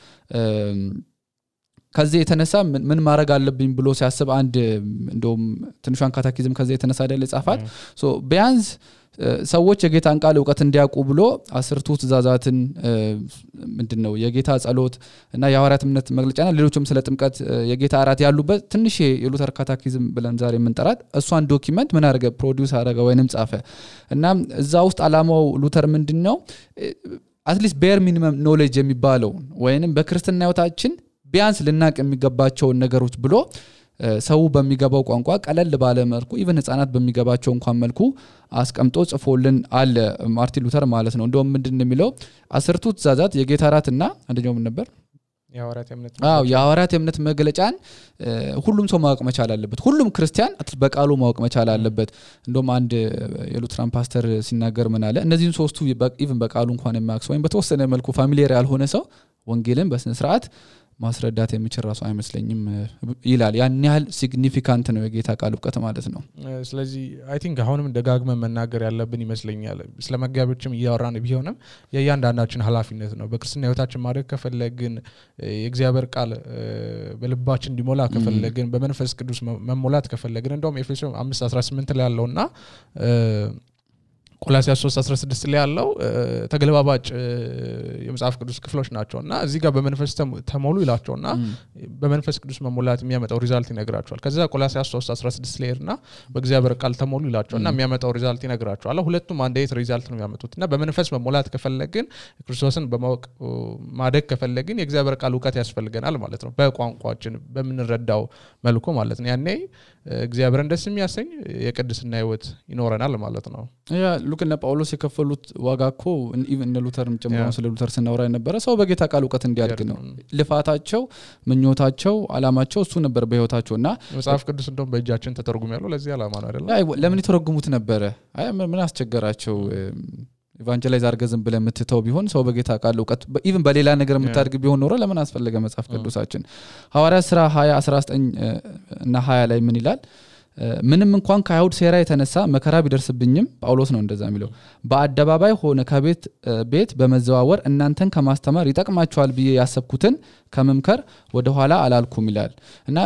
ከዚህ የተነሳ ምን ማድረግ አለብኝ ብሎ ሲያስብ አንድ እንደውም ትንሿን ካታኪዝም ከዚህ የተነሳ አይደል ጻፋት ሶ ቢያንስ ሰዎች የጌታን ቃል ዕውቀት እንዲያውቁ ብሎ 10ቱ ትእዛዛትን ምንድነው የጌታ ጸሎት እና የሐዋርያት እምነት መግለጫና ሌሎችም ስለ ጥምቀት የጌታ አራት ያሉበት ትንሽ የሉተር ካታኪዝም ብለን ዛሬ የምንጠራት እሷን ዶክመንት ምን አደረገ ፕሮዲዩስ አደረገ ወይንም ጻፈ እና እዛ ውስጥ አላማው ሉተር ምንድነው አትሊስት ቤር ሚኒመም ኖሌጅ የሚባለው ወይንም በክርስትና ህይወታችን ቢያንስ ልናቅ የሚገባቸው ነገሮች ብሎ ሰው በሚገባው ቋንቋ ቀለል ባለ መልኩ ኢቭን ህፃናት በሚገባቸው እንኳን መልኩ አስቀምጦ ጽፎልን አለ ማርቲን ሉተር ማለት ነው እንደውም ምንድነው የሚለው 10ቱ ትእዛዛት የጌታ እራትና አንደኛው ምን ነበር የሐዋርያት የእምነት መግለጫን ሁሉም ሰው ማወቅ መቻል አለበት ሁሉም ክርስቲያን በቃሉ ማወቅ መቻል አለበት እንደውም አንድ የሉትራን ፓስተር ሲናገር ምን አለ እነዚህን ሶስቱ ኢቭን በቃሉ እንኳን የማያውቅ ሰው ወይም በተወሰነ መልኩ ፋሚሊየር ያልሆነ ሰው ወንጌልን በስነ ስርዓት ማስረዳት የሚችል ራሱ አይመስለኝም ይላል ያን ያህል ሲግኒፊካንት ነው የጌታ ቃል ዕውቀት ማለት ነው ስለዚህ አይ ቲንክ አሁንም ደጋግመን መናገር ያለብን ይመስለኛል ስለመጋቢዎችም እያወራን ቢሆንም የእያንዳንዳችን ኃላፊነት ነው በክርስትና ህይወታችን ማድረግ ከፈለግን የእግዚአብሔር ቃል በልባችን እንዲሞላ ከፈለግን በመንፈስ ቅዱስ መሞላት ከፈለግን እንደውም ኤፌሶን 5:18 ላይ ያለውና ቆላስይስ 3:16 ላይ ያለው ተገልባባጭ የመጽሐፍ ቅዱስ ክፍሎች ናቸውና እዚህ ጋር በመንፈስ ተሞሉ ይላቸውና በመንፈስ ቅዱስ መሞላት የሚያመጣው ሪዛልት ይነግራቸዋል ከዛ ቆላስይስ 3:16 ላይና በእግዚአብሔር ቃል ተሞሉ ይላቸውና የሚያመጣው ሪዛልት ይነግራቸዋል ሁለቱም አንድ አይነት ሪዛልት ነው የሚያመጡትና በመንፈስ መሞላት ከፈለግን ክርስቶስን በማወቅ ማደግ ከፈለግን የእግዚአብሔር ቃል ዕውቀት ያስፈልገናል ማለት ነው በቋንቋችን በመንረዳው መልኩ ማለት ነው ያኔ እግዚአብሔርን ደስ የሚያሰኝ የቅድስና ህይወት ይኖረናል ማለት ነው ያ ሉክና ጳውሎስ የከፈሉት ዋጋኮ ኢቭን ሉተርም ጨምሮ ስለ ሉተር ስናወራ የነበረ ሰው በጌታ ቃል ዕውቀት እንዲያድግ ነው ልፋታቸው ምኞታቸው አላማቸው እሱ ነበር በህይወታቸውና መጽሐፍ ቅዱስ እንደውም በእጃችን ተተርጉም ያለው ለዚህ አላማ ነው አይደል ለምን ይተረጉሙት ነበር አይ ምን አስቸገራቸው ኢቫንጀላይዝ አርገዝም ብለ ምትተው ቢሆን ሰው በጌታ ቃል ዕውቀት ኢቭን በሌላ ነገር ምታድግ ቢሆን ኖሮ ለምን አስፈልገ መጽሐፍ ቅዱሳችን ሐዋርያት ሥራ 20:19 እና 20 ላይ ምን ይላል ምንም እንኳን ከአይሁድ ሴራ የተነሳ መከራ ቢደርስብኝም ጳውሎስ ነው እንደዛ የሚለው በአደባባይ ሆነ ከቤት ቤት በመዘዋወር እናንተን ከማስተማር ይጠቅማችኋል ብዬ ያሰብኩትን ከመምከር ወደ ኋላ አላልኩም ይላል እና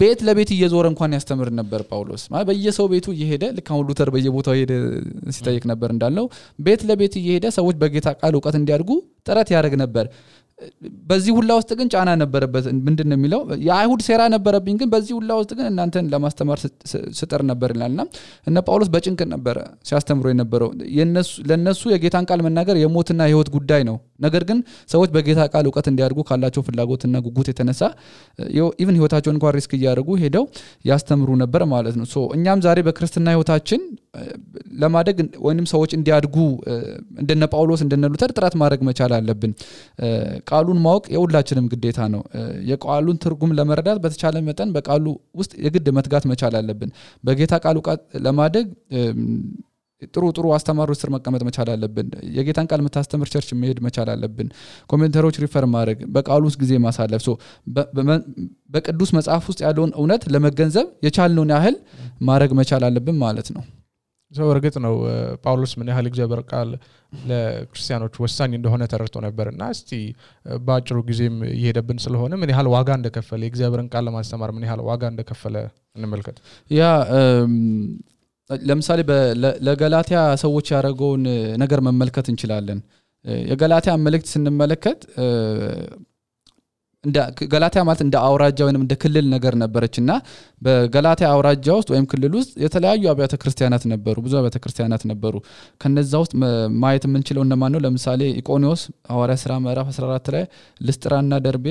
ቤት ለቤት እየዞረ እንኳን ያስተምር ነበር ጳውሎስ ማለት በየሰው ቤቱ እየሄደ ለካው ሉተር በየቦታው ሄደ ሲጠይቅ ነበር እንዳለው ቤት ለቤት እየሄደ ሰዎች በጌታ ቃል ዕውቀት እንዲያድጉ ጥረት ያደርግ ነበር በዚህ ሁላ ውስጥ ግን ጫና ነበረበት ምንድነው የሚለው የአይሁድ ሴራ ነበረብኝ ግን በዚህ ሁላ ውስጥ ግን እናንተን ለማስተማር ስጥር ነበር ይላልና እነ ጳውሎስ በጭንቅ ነበር ሲያስተምሩ የነበረው ለነሱ የጌታን ቃል መናገር የሞትና የህይወት ጉዳይ ነው ነገር ግን ሰዎች በጌታ ቃል ዕውቀት እንዲያድጉ ካላቸው ፍላጎትና ጉጉት የተነሳ ኢቭን ህይወታቸውን እንኳን ሪስክ ያደርጉ ሄደው ያስተምሩ ነበር ማለት ነው ሶ እኛም ዛሬ በክርስትና ህይወታችን ለማደግ ወይንም ሰዎች እንዲያድጉ እንደነ ጳውሎስ እንደነ ሉተር ጥረት ማድረግ መቻል አለብን ቃሉን ማወቅ የሁላችንም ግዴታ ነው የቃሉን ትርጉም ለመረዳት በተቻለ መጠን በቃሉ ውስጥ የግድ መትጋት መቻል አለብን በጌታ ቃል ዕውቀት ለማደግ ጥሩ አስተማሪዎች ስር መቀመጥ መቻል አለብን የጌታን ቃል መታስተምር ቸርች መሄድ መቻል አለብን ኮሜንተሮች ሪፈር ማድረግ በቃሉ ውስጥ ጊዜ ማሳለፍ ሶ በቅዱስ መጽሐፍ ውስጥ ያለውን እውነት ለመገንዘብ የቻልነውን ያህል ማድረግ መቻል አለብን ማለት ነው ሰው እርግጥ ነው ጳውሎስ ምን ያህል እግዚአብሔር ቃል ለክርስቲያኖች ወሳኝ እንደሆነ ተረድቶ ነበርና እስቲ ባጭሩ ጊዜም ይሄደብን ስለሆነ ምን ያህል ዋጋ እንደከፈለ የእግዚአብሔርን ቃል ለማስተማር ምን ያህል ዋጋ እንደከፈለ እንመልከት ያ ለምሳሌ ለገላትያ ሰዎች ያደረገውን ነገር መመልከት እንችላለን የገላትያ መልእክት ስንመለከት እንደ ገላትያ ማለት እንደ አውራጃ ወይንም እንደ ክልል ነገር ነበርችና በገላትያ አውራጃ ውስጥ ወይም ክልል ውስጥ የተለያዩ አብያተ ክርስቲያናት ነበሩ ብዙ አብያተ ክርስቲያናት ነበሩ ከነዛ ውስጥ ማየት የምንችለው እነማን ነው ለምሳሌ ኢቆኒዮስ ሐዋርያት ሥራ ምዕራፍ 14 ላይ ልስጥራና ደርቤ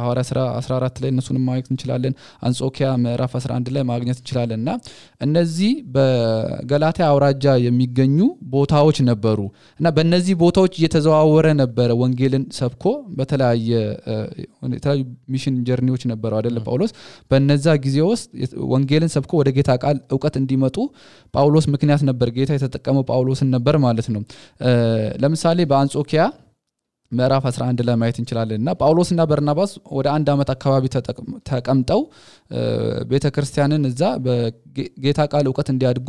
ሐዋርያት ሥራ 14 ላይ እነሱንም ማየት እንችላለን አንጾኪያ ምዕራፍ 11 ላይ ማግኘት እንችላለንና እነዚህ በገላትያ አውራጃ የሚገኙ ቦታዎች ነበሩ እና በእነዚህ ቦታዎች እየተዘዋወረ ነበር ወንጌልን ሰብኮ በተለያየ ሚሽን ጀርኒዎች ነበሩ አይደል ጳውሎስ በእነዛ ጊዜ ውስጥ ወንጌልን ሰብኮ ወደ ጌታ ቃል ዕውቀት እንዲመጡ ጳውሎስ ምክንያት ነበር ጌታ የተጠቀመው ጳውሎስን ነበር ማለት ነው ለምሳሌ በአንጾኪያ ምዕራፍ 11 ላይ ማየት እንችላለንና ጳውሎስና በርናባስ ወደ 1 አመት አካባቢ ተቀምጠው ቤተክርስቲያንን እዛ በጌታ ቃል ዕውቀት እንዲያድጉ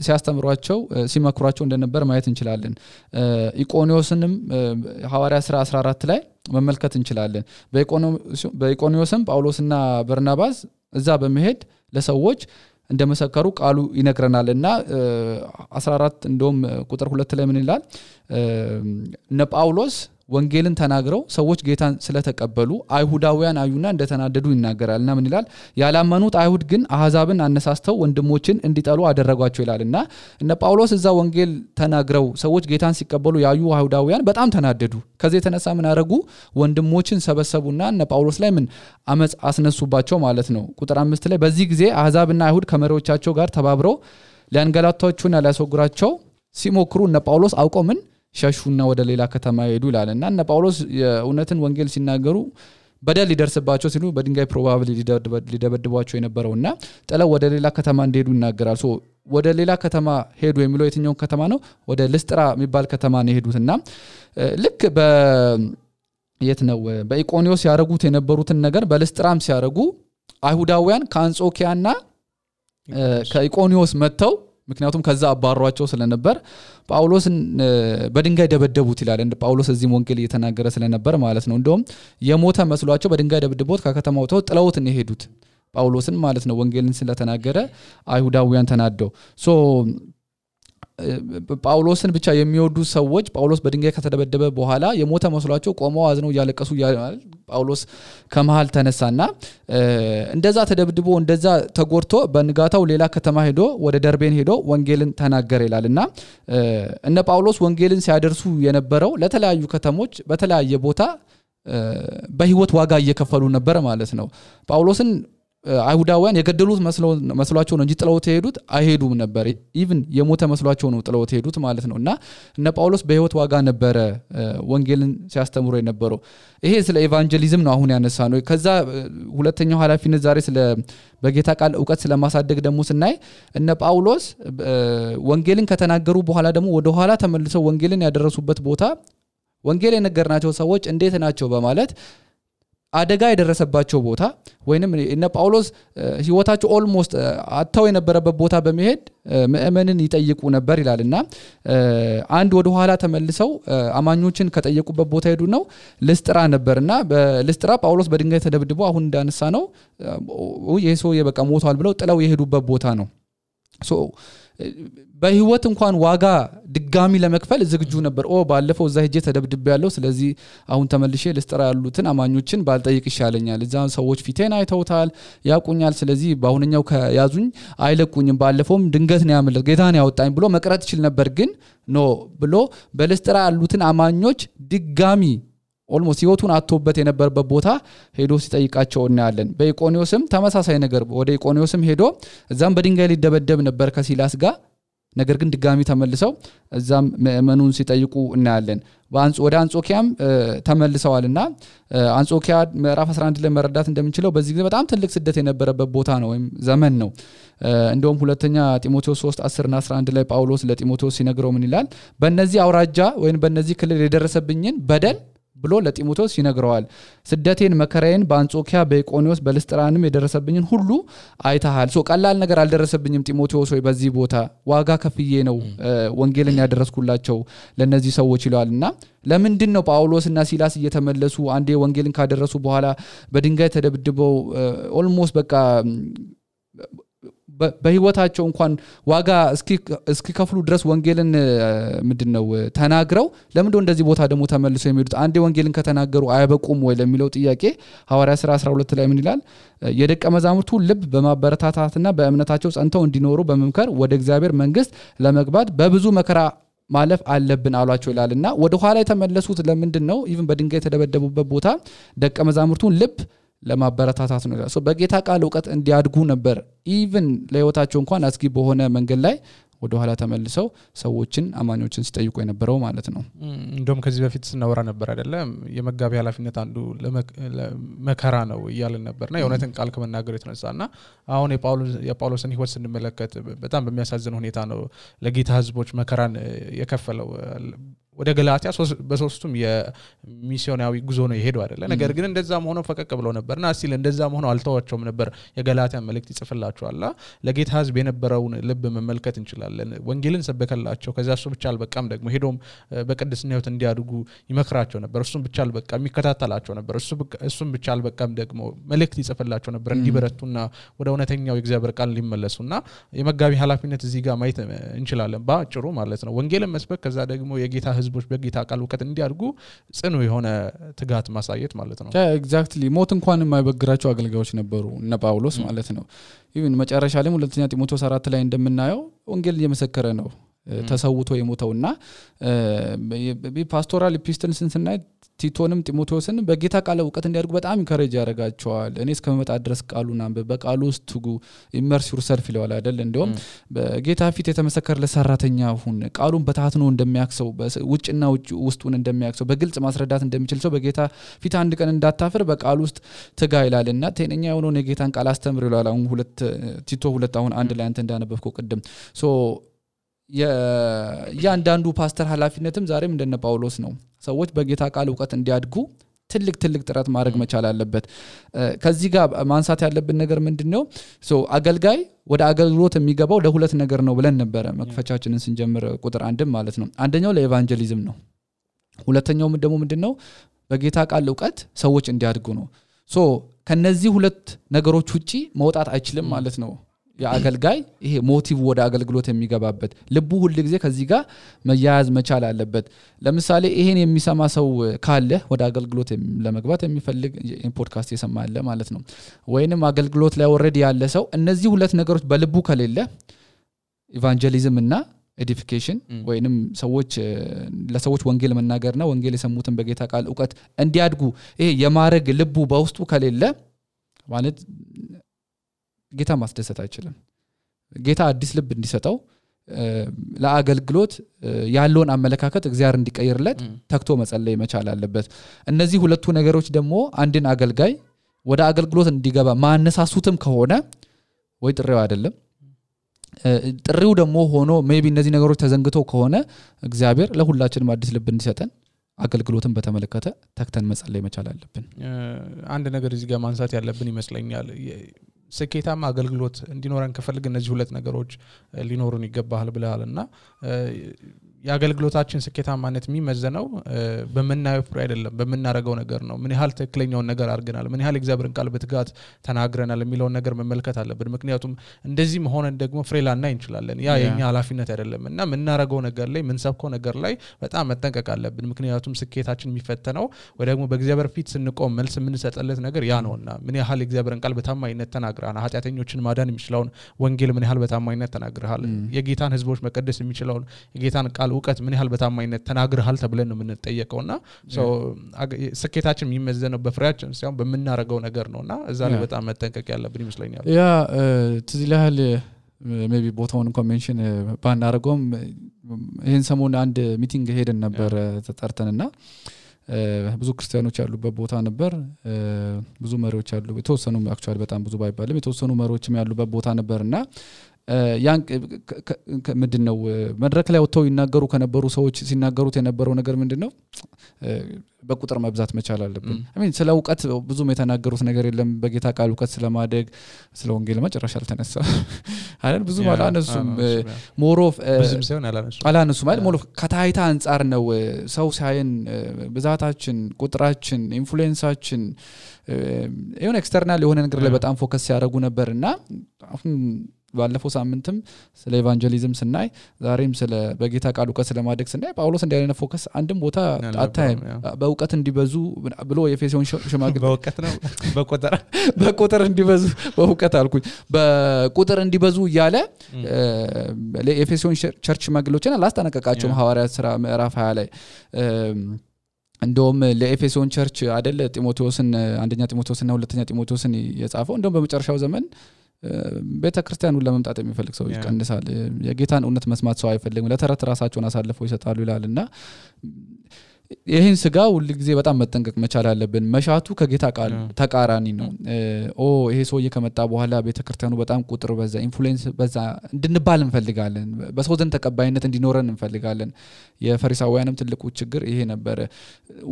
ሲያስተምሯቸው ሲመክሯቸው እንደነበር ማየት እንችላለን ኢቆኒዮስንም ሐዋርያት ሥራ 14 ላይ መመልከት እንችላለን በኢቆኒዮስም ጳውሎስና በርናባስ እዛ በመሄድ ለሰዎች እንደመሰከሩ ቃሉ ይነግረናልና 14 እንደውም ቁጥር 2 ላይ ምን ይላል እነ ጳውሎስ ወንጌልን ተናግረው ሰዎች ጌታን ስለተቀበሉ አይሁዳውያን አዩና እንደተናደዱ ይናገራልና ምን ይላል ያላመኑት አይሁድ ግን አህዛብን አነሳስተው ወንድሞችን እንዲጠሉ አደረጓቸው ይላልና እነ ጳውሎስ እዛ ወንጌል ተናግረው ሰዎች ጌታን ሲቀበሉ ያዩ አይሁዳውያን በጣም ተናደዱ ከዚህ የተነሳ ምን አረጉ ወንድሞችን ሰበሰቡና እነ ጳውሎስ ላይ ምን አመጽ አስነሱባቸው ማለት ነው ቁጥር 5 ላይ በዚህ ጊዜ አህዛብና አይሁድ ከመሪዎቻቸው ጋር ተባብረው ሊያንገላቷቸውና ሊያስወግሯቸው ሲሞክሩ እነ ጳውሎስ አውቀው ምን ሸሹና ወደ ሌላ ከተማ ሄዱ ይላልና እነ ጳውሎስ የእውነትን ወንጌል ሲናገሩ በደል ሊደርስባቸው ሲሉ በድንጋይ ፕሮባብሊ ሊደበድቧቸው የነበረውና ጥለው ወደ ሌላ ከተማ እንደሄዱ ይናገራል ሶ ወደ ሌላ ከተማ ሄዱ የሚለው የትኛው ከተማ ነው ወደ ልስጥራ የሚባል ከተማ ነው ሄዱትና ልክ የት ነው በኢቆኒዮስ ያረጉት የነበሩትን ነገር በልስጥራም ሲያረጉ አይሁዳውያን ከአንጾኪያና ከኢቆኒዮስ መተው ምክንያቱም ከዛ አባሯቸው ስለነበር ጳውሎስን በድንጋይ ደበደቡት ይላል እንደ ጳውሎስ እዚህ ወንጌል እየተናገረ ስለነበር ማለት ነው እንደውም የሞተ መስሏቸው በድንጋይ ደብድቦት ከከተማው ጥለውት ነው ሄዱት ጳውሎስን ማለት ነው ወንጌልን ስለተናገረ አይሁዳውያን ተናደው ሶ ጳውሎስን ብቻ የሚወዱ ሰዎች ጳውሎስ በድንጋይ ከተደበደበ በኋላ የሞተ መስሏቸው ቆመው አዝነው ያለቀሱ ጳውሎስ ከመሃል ተነሳና እንደዛ ተደብድቦ እንደዛ ተጎርቶ በንጋታው ሌላ ከተማ ሄዶ ወደ ደርቤን ሄዶ ወንጌልን ተናገረ ይላልና እነ ጳውሎስ ወንጌልን ሲያደርሱ የነበረው ለተለያዩ ከተሞች በተለያየ ቦታ በህይወት ዋጋ እየከፈሉ ነበር ማለት ነው ጳውሎስን አይሁዳውያን የገደሉት መስሏቸው ነው እንጂ ጥለውት ሄዱት አይሄዱም ነበር ኢቭን የሞተ መስሏቸው ነው ጥለውት ሄዱት ማለት ነውና እነ ጳውሎስ በህይወት ዋጋ ነበር ወንጌልን ሲያስተምሩ የነበረው ይሄ ስለ ኢቫንጀሊዝም ነው አሁን ያነሳ ነው ከዛ ሁለተኛው ኃላፊነት ዛሬ ስለ በጌታ ቃል ዕውቀት ስለማሳደግ ደግሞ ስናይ እነ ጳውሎስ ወንጌልን ከተናገሩ በኋላ ደግሞ ወደ ኋላ ተመልሰው ወንጌልን ያደረሱበት ቦታ ወንጌል የነገርናቸው ሰዎች እንዴት ናቸው በማለት አደጋ የደረሰባቸው ቦታ ወይንም እነ ጳውሎስ ህይወታቸው ኦልሞስት አጣው የነበረበት ቦታ በመሄድ ምእመንን ይጠይቁ ነበር ይላልና አንድ ወደ ኋላ ተመልሰው አማኞችን ከጠየቁበት ቦታ ሄዱ ነው ልስጥራ ነበርና በልስጥራ ጳውሎስ በድንጋይ ተደብድቦ አሁን እንዳነሳ ነው ኢየሱስ የበቃ ሞቷል ብለው ጥለው የሄዱበት ቦታ ነው ሶ በህይወት እንኳን ዋጋ ድጋሚ ለመክፈል ዝግጁ ነበር ባለፈው እዛ ሄጄ ተደብድብ ያለው ስለዚህ አሁን ተመልሼ ልስጥራ ያሉትን አማኞችን ባልጠይቅ ይሻለኛል እዛ ሰዎች ፊቴን አይተውታል ያቁኛል ስለዚህ ባሁንኛው ከያዙኝ አይለቁኝም ባለፈውም ድንገት ነው ያመለጥ ጌታን ያወጣኝ ብሎ መቅረት ይችላል ነበር ግን ኖ ብሎ በልስጥራ ያሉትን አማኞች ድጋሚ ኦልሞስት ህይወቱን አጥቶበት የነበረበት ቦታ ሄዶ ሲጠይቃቸው እናያለን በኢቆኒዮስም ተመሳሳይ ነገር ወደ ኢቆኒዮስም ሄዶ እዛም በድንጋይ ሊደበደብ ነበር ከሲላስ ጋር ነገር ግን ድጋሚ ተመልሰው እዛም ምእመኑን ሲጠይቁ እናያለን ወደ አንጾኪያም ተመልሰዋልና አንጾኪያ ምዕራፍ 11 ላይ መረዳት እንደምንችለው በዚህ ጊዜ በጣም ትልቅ ስደት የነበረበት ቦታ ነው ወይም ዘመን ነው እንደውም ሁለተኛ ጢሞቴዎስ 3:10 እና 11 ላይ ጳውሎስ ለጢሞቴዎስ ሲነግረው ምን ይላል በእነዚህ አውራጃ ወይም በእነዚህ ክልል የደረሰብኝን በደል ብሎ ለጢሞቴዎስ ይነግረዋል ስደቴን መከራዬን በአንጾኪያ በኢቆኒዮስ በልስጥራንም የደረሰብኝን ሁሉ አይተሃል ሶ ቀላል ነገር አልደረሰብኝም ጢሞቴዎስ ወይ በዚህ ቦታ ዋጋ ከፍዬ ነው ወንጌልን ያደረስኩላቸው ለነዚህ ሰዎች ይላልና ለምንድን ነው ጳውሎስና ሲላስ እየተመለሱ አንዴ ወንጌልን ካደረሱ በኋላ በድንጋይ ተደብድበው ኦልሞስት በቃ በህይወታቸው እንኳን ዋጋ እስኪከፍሉ ድረስ ወንጌልን ምንድነው ተናግረው ለምንድነው እንደዚህ ቦታ ደግሞ ተመልሰው የሚሄዱት አንዴ ወንጌልን ከተናገሩ አይበቁም ወይ ለሚለው ጥያቄ ሐዋርያ ሥራ 12 ላይ ምን ይላል የደቀ መዛሙርቱ ልብ በማበረታታትና በእምነታቸው ጸንተው እንዲኖሩ በመምከር ወደ እግዚአብሔር መንግስት ለመግባት በብዙ መከራ ማለፍ አለብን አሏቸው ይላልና ወደ ኋላ የተመለሱት ለምንድነው ኢቭን በድንጋይ የተደበደቡበት ቦታ ደቀ መዛሙርቱን ልብ ለማበረታታት ነው ሶ በጌታ ቃል ዕውቀት እንዲያድጉ ነበር ኢቭን ለህይወታቸው እንኳን አስጊ በሆነ መንገድ ላይ ወደ ኋላ ተመልሰው ሰዎችን አማኞችን ሲጠይቁ የነበረው ማለት ነው እንደውም ከዚህ በፊት ስናወራ ነበር አይደለም የመጋቢ ኃላፊነት አንዱ ለመከራ ነው ይያልን ነበርና የእውነትን ቃል ከመናገር የተነሳና አሁን የጳውሎስን ህይወት ስንመለከት በጣም በሚያሳዝን ሁኔታ ነው ለጌታ ህዝቦች መከራን የከፈለው ወደ ገላትያ በሶስቱም የሚሲዮናዊ ጉዞ ነው የሄደው አይደለ ነገር ግን እንደዛም ሆኖ ፈቀቅ ብሎ ነበርና ሲል እንደዛም ሆኖ አልተዋቸውም ነበር የገላትያ መልእክት ይጽፍላቸዋልና ለጌታ ህዝብ የነበረውን ልብ መመልከት እንችላለን ወንጌልን ሰበከላቸው ከዛ እሱ ብቻ አልበቃም ደግሞ ሄዶም በቅድስና ህይወት እንዲያድጉ ይመክራቸው ነበር እሱም ብቻ አልበቃም ይከታተላቸው ነበር እሱም ብቻ አልበቃም ደግሞ መልእክት ይጽፍላቸው ነበር እንዲበረቱና ወደ እውነተኛው የእግዚአብሔር ቃል ሊመለሱና የመጋቢ ኃላፊነት እዚህ ጋር ማየት እንችላለን ባጭሩ ማለት ነው ወንጌልን መስበክ ከዛ ደግሞ የጌታ ህዝብ ህዝቦች በጌታ ቃል ዕውቀት እንዲያድጉ ጽኑ የሆነ ትጋት ማሳየት ማለት ነው ኤግዛክትሊ ሞት እንኳን የማይበግራቸው አገልጋዮች ነበሩ እነ ጳውሎስ ማለት ነው ኢቭን መጨረሻ ላይ ሁለተኛ ጢሞቴዎስ 4 ላይ እንደምናየው ወንጌል እየመሰከረ ነው ተሰውቶ የሞተውና ፓስቶራል ኢፒስትልስን ስናይ ቲቶንም ጢሞቴዎስን በጌታ ቃል ዕውቀት እንዲያድጉ በጣም ኢንካሬጅ ያደርጋቸዋል እኔ እስከመጣ ድረስ ቃሉን አንብብ በቃሉ ውስጥ ትጉ ኢመርስ ዩርሰልፍ ይለዋል አይደል እንደውም በጌታ ፊት የተመሰከረለት ሰራተኛ ሁን ቃሉን በታትኖ እንደሚያክሰው ውጭና ውስጡን እንደሚያክሰው በግልጽ ማስረዳት እንደሚችል ሰው በጌታ ፊት አንድ ቀን እንዳታፍር በቃሉ ውስጥ ትጋ ይላልና ጤነኛ የሆነውን የጌታን ቃል አስተምር ይላል አሁን ቲቶ 2 አሁን አንድ ላይ አንተ እንዳነበብከው ቅድም ሶ ያንዳንዱ ፓስተር ኃላፊነትም ዛሬም እንደነ ጳውሎስ ነው ሰዎች በጌታ ቃል ዕውቀት እንዲያድጉ ትልቅ ጥረት ማድረግ መቻል አለበት ከዚህ ጋር ማንሳት ያለብን ነገር ምንድነው ሶ አገልጋይ ወደ አገልግሎት የሚገባው ለሁለት ነገር ነው ብለን ነበር መክፈቻችንን ስንጀምር ቁጥር 1 ማለት ነው አንደኛው ለኤቫንጀሊዝም ነው ሁለተኛው ደግሞ ምንድነው በጌታ ቃል ዕውቀት ሰዎች እንዲያድጉ ነው ሶ ከነዚህ ሁለት ነገሮች ውጪ መውጣት አይችልም ማለት ነው የአገልጋይ ይሄ ሞቲቭ ወደ አገልግሎት የሚገባበት ልቡ ሁሉ ጊዜ ከዚህ ጋር መያያዝ መቻል አለበት ለምሳሌ ይሄን የሚሰማ ሰው ካለ ወደ አገልግሎት ለመግባት የሚፈልግ ፖድካስት የሰማለ ማለት ነው ወይንም አገልግሎት ላይ ኦሬዲ ያለ ሰው እነዚህ ሁለት ነገሮች በልቡ ከሌለ ኢቫንጀሊዝም እና ኤዲፊኬሽን ወይንም ሰዎች ለሰዎች ወንጌል መናገርና ወንጌል የሰሙትን በጌታ ቃል ዕውቀት እንዲያድጉ ይሄ የማረግ ልቡ በውስጡ ከሌለ ማለት ጌታ ማስደሰት አይችልም ጌታ አዲስ ልብ እንዲሰጠው ለአገልግሎት ያለውን አመለካከት እግዚአብሔር እንዲቀይርለት ተክቶ መጸለይ መቻል አለበት እነዚህ ሁለቱ ነገሮች ደግሞ አንድን አገልጋይ ወደ አገልግሎት እንዲገባ ማነሳሱትም ከሆነ ወይ ጥሪው አይደለም ጥሪው ደግሞ ሆኖ ሜቢ እነዚህ ነገሮች ተዘንግተው ከሆነ እግዚአብሔር ለሁላችንም አዲስ ልብ እንዲሰጠን አገልግሎትን በተመለከተ ተክተን መጸለይ መቻል አለብን አንድ ነገር እዚህ ጋር ማንሳት ያለብን ይመስለኛል ስኬታማ አገልግሎት እንዲኖረን ከፈልግ እነዚህ ሁለት ነገሮች ሊኖሩን ይገባል ብለሃልና የአገልግሎታችን ስኬታማነት የሚመዘነው በመናየው ፍሬ አይደለም በመናረጋው ነገር ነው ምን ያህል ትክክለኛውን ነገር አድርገናል ምን ያህል እግዚአብሔርን ቃል በትጋት ተናግረናል የሚለውን ነገር መመልከት አለብን ምክንያቱም እንደዚህ መሆነን ደግሞ ፍሬ ላናይ እንችላለን ያ የኛ ኃላፊነት አይደለምና ምናረጋው ነገር ላይ ምንሰብከው ነገር ላይ በጣም መጠንቀቅ አለብን ምክንያቱም ስኬታችን የሚፈተነው ወይ ደግሞ በእግዚአብሔር ፊት ስንቆም መልስ የምንሰጥለት ነገር ያ ነውና ምን ያህል እግዚአብሔርን ቃል በታማኝነት ተናግረናል ኃጢአተኞችን ማዳን የሚችለውን ወንጌል ምን ያህል በታማኝነት ተናግረሃል የጌታን ህዝቦች መቀደስ የሚችለውን የጌታን ቃል ዕውቀት ምን ያህል በታማኝነት ተናግረሃል ተብለን ነው የምንጠየቀውና ስኬታችን የሚመዘነው በፍሬያችን ሳይሆን በመናረጋው ነገር ነውና እዛ ላይ በጣም መጠንቀቅ ያለብን ይመስለኛል ያ ትዝላል ሜቢ ቦታውን ኮንቬንሽን ባናረጋውም ይሄን ሰሞን አንድ ሚቲንግ ሄደን ነበር ተጠርተንና ብዙ ክርስቲያኖች ያሉበት ቦታ ነበር ብዙ መሪዎች ያሉ የተወሰኑ አክቹአሊ በጣም ብዙ ባይባልም የተወሰኑ መሪዎችም ያሉበት ቦታ ነበርና ያን ምንድነው መድረክ ላይ ወጥተው ይናገሩ ከነበሩ ሰዎች ሲናገሩት የነበረው ነገር ምንድነው በቁጥር መብዛት መቻል አለብን አሜን ስለ ዕውቀት ብዙም የተናገሩት ነገር የለም በጌታ ቃል ዕውቀት ስለማደግ ስለ ወንጌል መጨረሻ አልተነሳ አይደል ብዙ አላነሱም ሞሮፍ ብዙም ሳይሆን አላነሱም ማለት ሞሮፍ ከታይታ አንፃር ነው ሰው ሳይን ብዛታችን ቁጥራችን ኢንፍሉዌንሳችን የሆነ ኤክስተርናል የሆነ ነገር ላይ በጣም ፎከስ ያደርጉ ነበርና አሁን ባለፈው ሳምንትም ስለ ኢቫንጀሊዝም ስናይ ዛሬም ስለ በጌታ ቃል ዕውቀት ስለማደግ ስናይ ጳውሎስ እንዲያለነ ፎከስ አንድም ቦታ አታይም በዕውቀት እንዲበዙ ብሎ የኤፌሶን ሽማግሌ በዕውቀት ነው በቁጥር እንዲበዙ በዕውቀት አልኩኝ በቁጥር እንዲበዙ ይያለ ለኤፌሶን ቸርች ሽማግሌዎችን አላስጠነቀቃቸውም ሐዋርያት ሥራ ምዕራፍ 20 ላይ እንደውም ለኤፌሶን ቸርች አይደል ጢሞቴዎስን አንደኛ ጢሞቴዎስና ሁለተኛ ጢሞቴዎስን የጻፈው እንደውም በመጨረሻው ዘመን ቤተክርስቲያኑ ለመምጣት የሚፈልግ ሰው ይቀንሳል የጌታን እውነት መስማት ሰው አይፈልግም ለተረት ራሳቸውን አሳልፈው ይሰጣሉ ይላልና ይሄን ስጋ ሁሉ ጊዜ በጣም መጠንቀቅ መቻል አለብን መሻቱ ከጌታ ቃል ተቃራኒ ነው ይሄ ሰውዬ ከመጣ በኋላ ቤተክርስቲያኑ በጣም ቁጥር በዛ ኢንፍሉዌንስ በዛ እንድንባል እንፈልጋለን በሰው ዘንድ ተቀባይነት እንዲኖረን እንፈልጋለን የፈሪሳውያንም ትልቁ ችግር ይሄ ነበር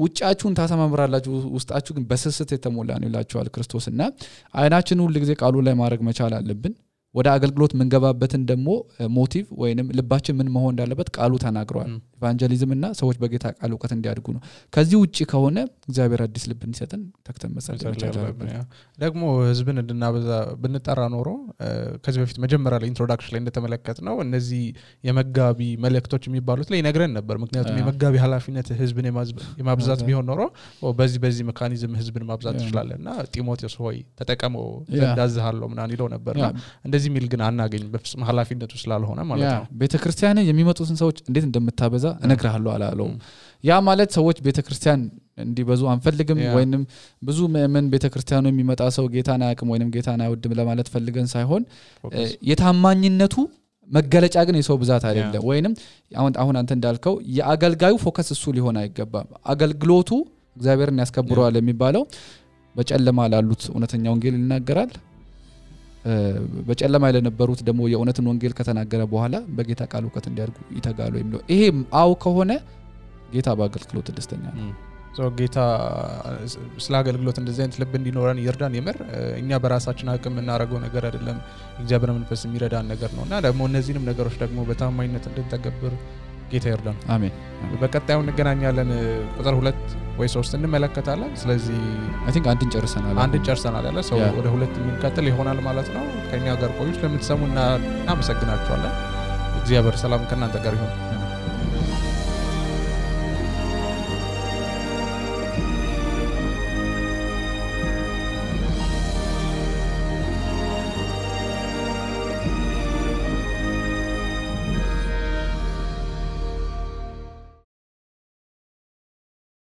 ውጫችሁን ታሰማምራላችሁ ውስጣችሁ ግን በስስት የተሞላ ነው ይላችኋል ክርስቶስና አይናችን ሁሉ ጊዜ ቃሉ ላይ ማድረግ መቻል አለብን ወደ አገልግሎት መንገባበትን ደግሞ ሞቲቭ ወይንም ልባችን ምን መሆን እንዳለበት ቃሉ ተናግሯል ኢቫንጀሊዝም እና ሰዎች በጌታ ቃል ዕውቀት እንዲያድጉ ነው ከዚህ ውጪ ከሆነ እግዚአብሔር አዲስ ልብ እንዲሰጠን ተክተን መጸለይ ይቻላል ደግሞ ህዝብን እንድናበዛ ብንጠራ ኖሮ ከዚህ በፊት መጀመሪያ ላይ ኢንትሮዳክሽን ላይ እንደተመለከትነው እነዚህ የመጋቢ መልእክቶች የሚባሉት ላይ ይነግረን ነበር ምክንያቱም የመጋቢ ኃላፊነት ህዝብን የማብዛት ቢሆን ኖሮ በዚህ ሜካኒዝም ህዝብን ማብዛት ይችላልና ጢሞቴዎስ ሆይ ተጠቀመው እንዳዝሃለው ምናን ይለው ነበርና እንደዚህ ሚል ግን አናገኝ በፍጹም ኃላፊነቱ ስላልሆነ ማለት ነው ቤተክርስቲያን የሚመጡትን ሰዎች እንዴት እንደምታበዛ እነግራለሁ አላለው ያ ማለት ሰዎች ቤተክርስቲያን እንዲበዙ አንፈልግም ወይንም ብዙ ምን ቤተክርስቲያኑ የሚመጣ ሰው ጌታን አያውቅም ወይንም ጌታን አይወድም ለማለት ፈልገን ሳይሆን የታማኝነቱ መገለጫ ግን የሰው ብዛት አይደለም ወይንም አሁን አንተ እንዳልከው የአገልጋዩ ፎከስ እሱ ሊሆን አይገባም አገልግሎቱ እግዚአብሔርን ያስከብረዋል የሚባለው በጨለማ ላሉት እውነተኛ ወንጌል ይናገራል በጨለማ ለነበሩት ደግሞ የእውነትን ወንጌል ከተናገረ በኋላ በጌታ ቃል ዕውቀት እንዲያድጉ ይተጋሉ የሚለው ይሄ አው ከሆነ ጌታ በአገልግሎት ደስተኛ ነው ጌታ ስለ አገልግሎት እንደዚህ አይነት ልብ እንዲኖረን ይርዳን ይመር እኛ በራሳችን አቅም እናረጋው ነገር አይደለም እግዚአብሔር መንፈስ የሚረዳን ነገር ነውና ደግሞ እነዚህንም ነገሮች ደግሞ በታማኝነት እንድንተገብር ጌታ ይርዳን አሜን በቀጣዩ እንገናኛለን ቁጥር 2 ወይ 3 እንመለከታለን ስለዚህ አይ ቲንክ አንድን ጨርሰናል ያለ ሰው ወደ 2 የሚከተል ይሆናል ማለት ነው ከኛ ጋር ቆዩ ስለምትሰሙና እናመሰግናችኋለን እግዚአብሔር ሰላም ከእናንተ ጋር ይሁን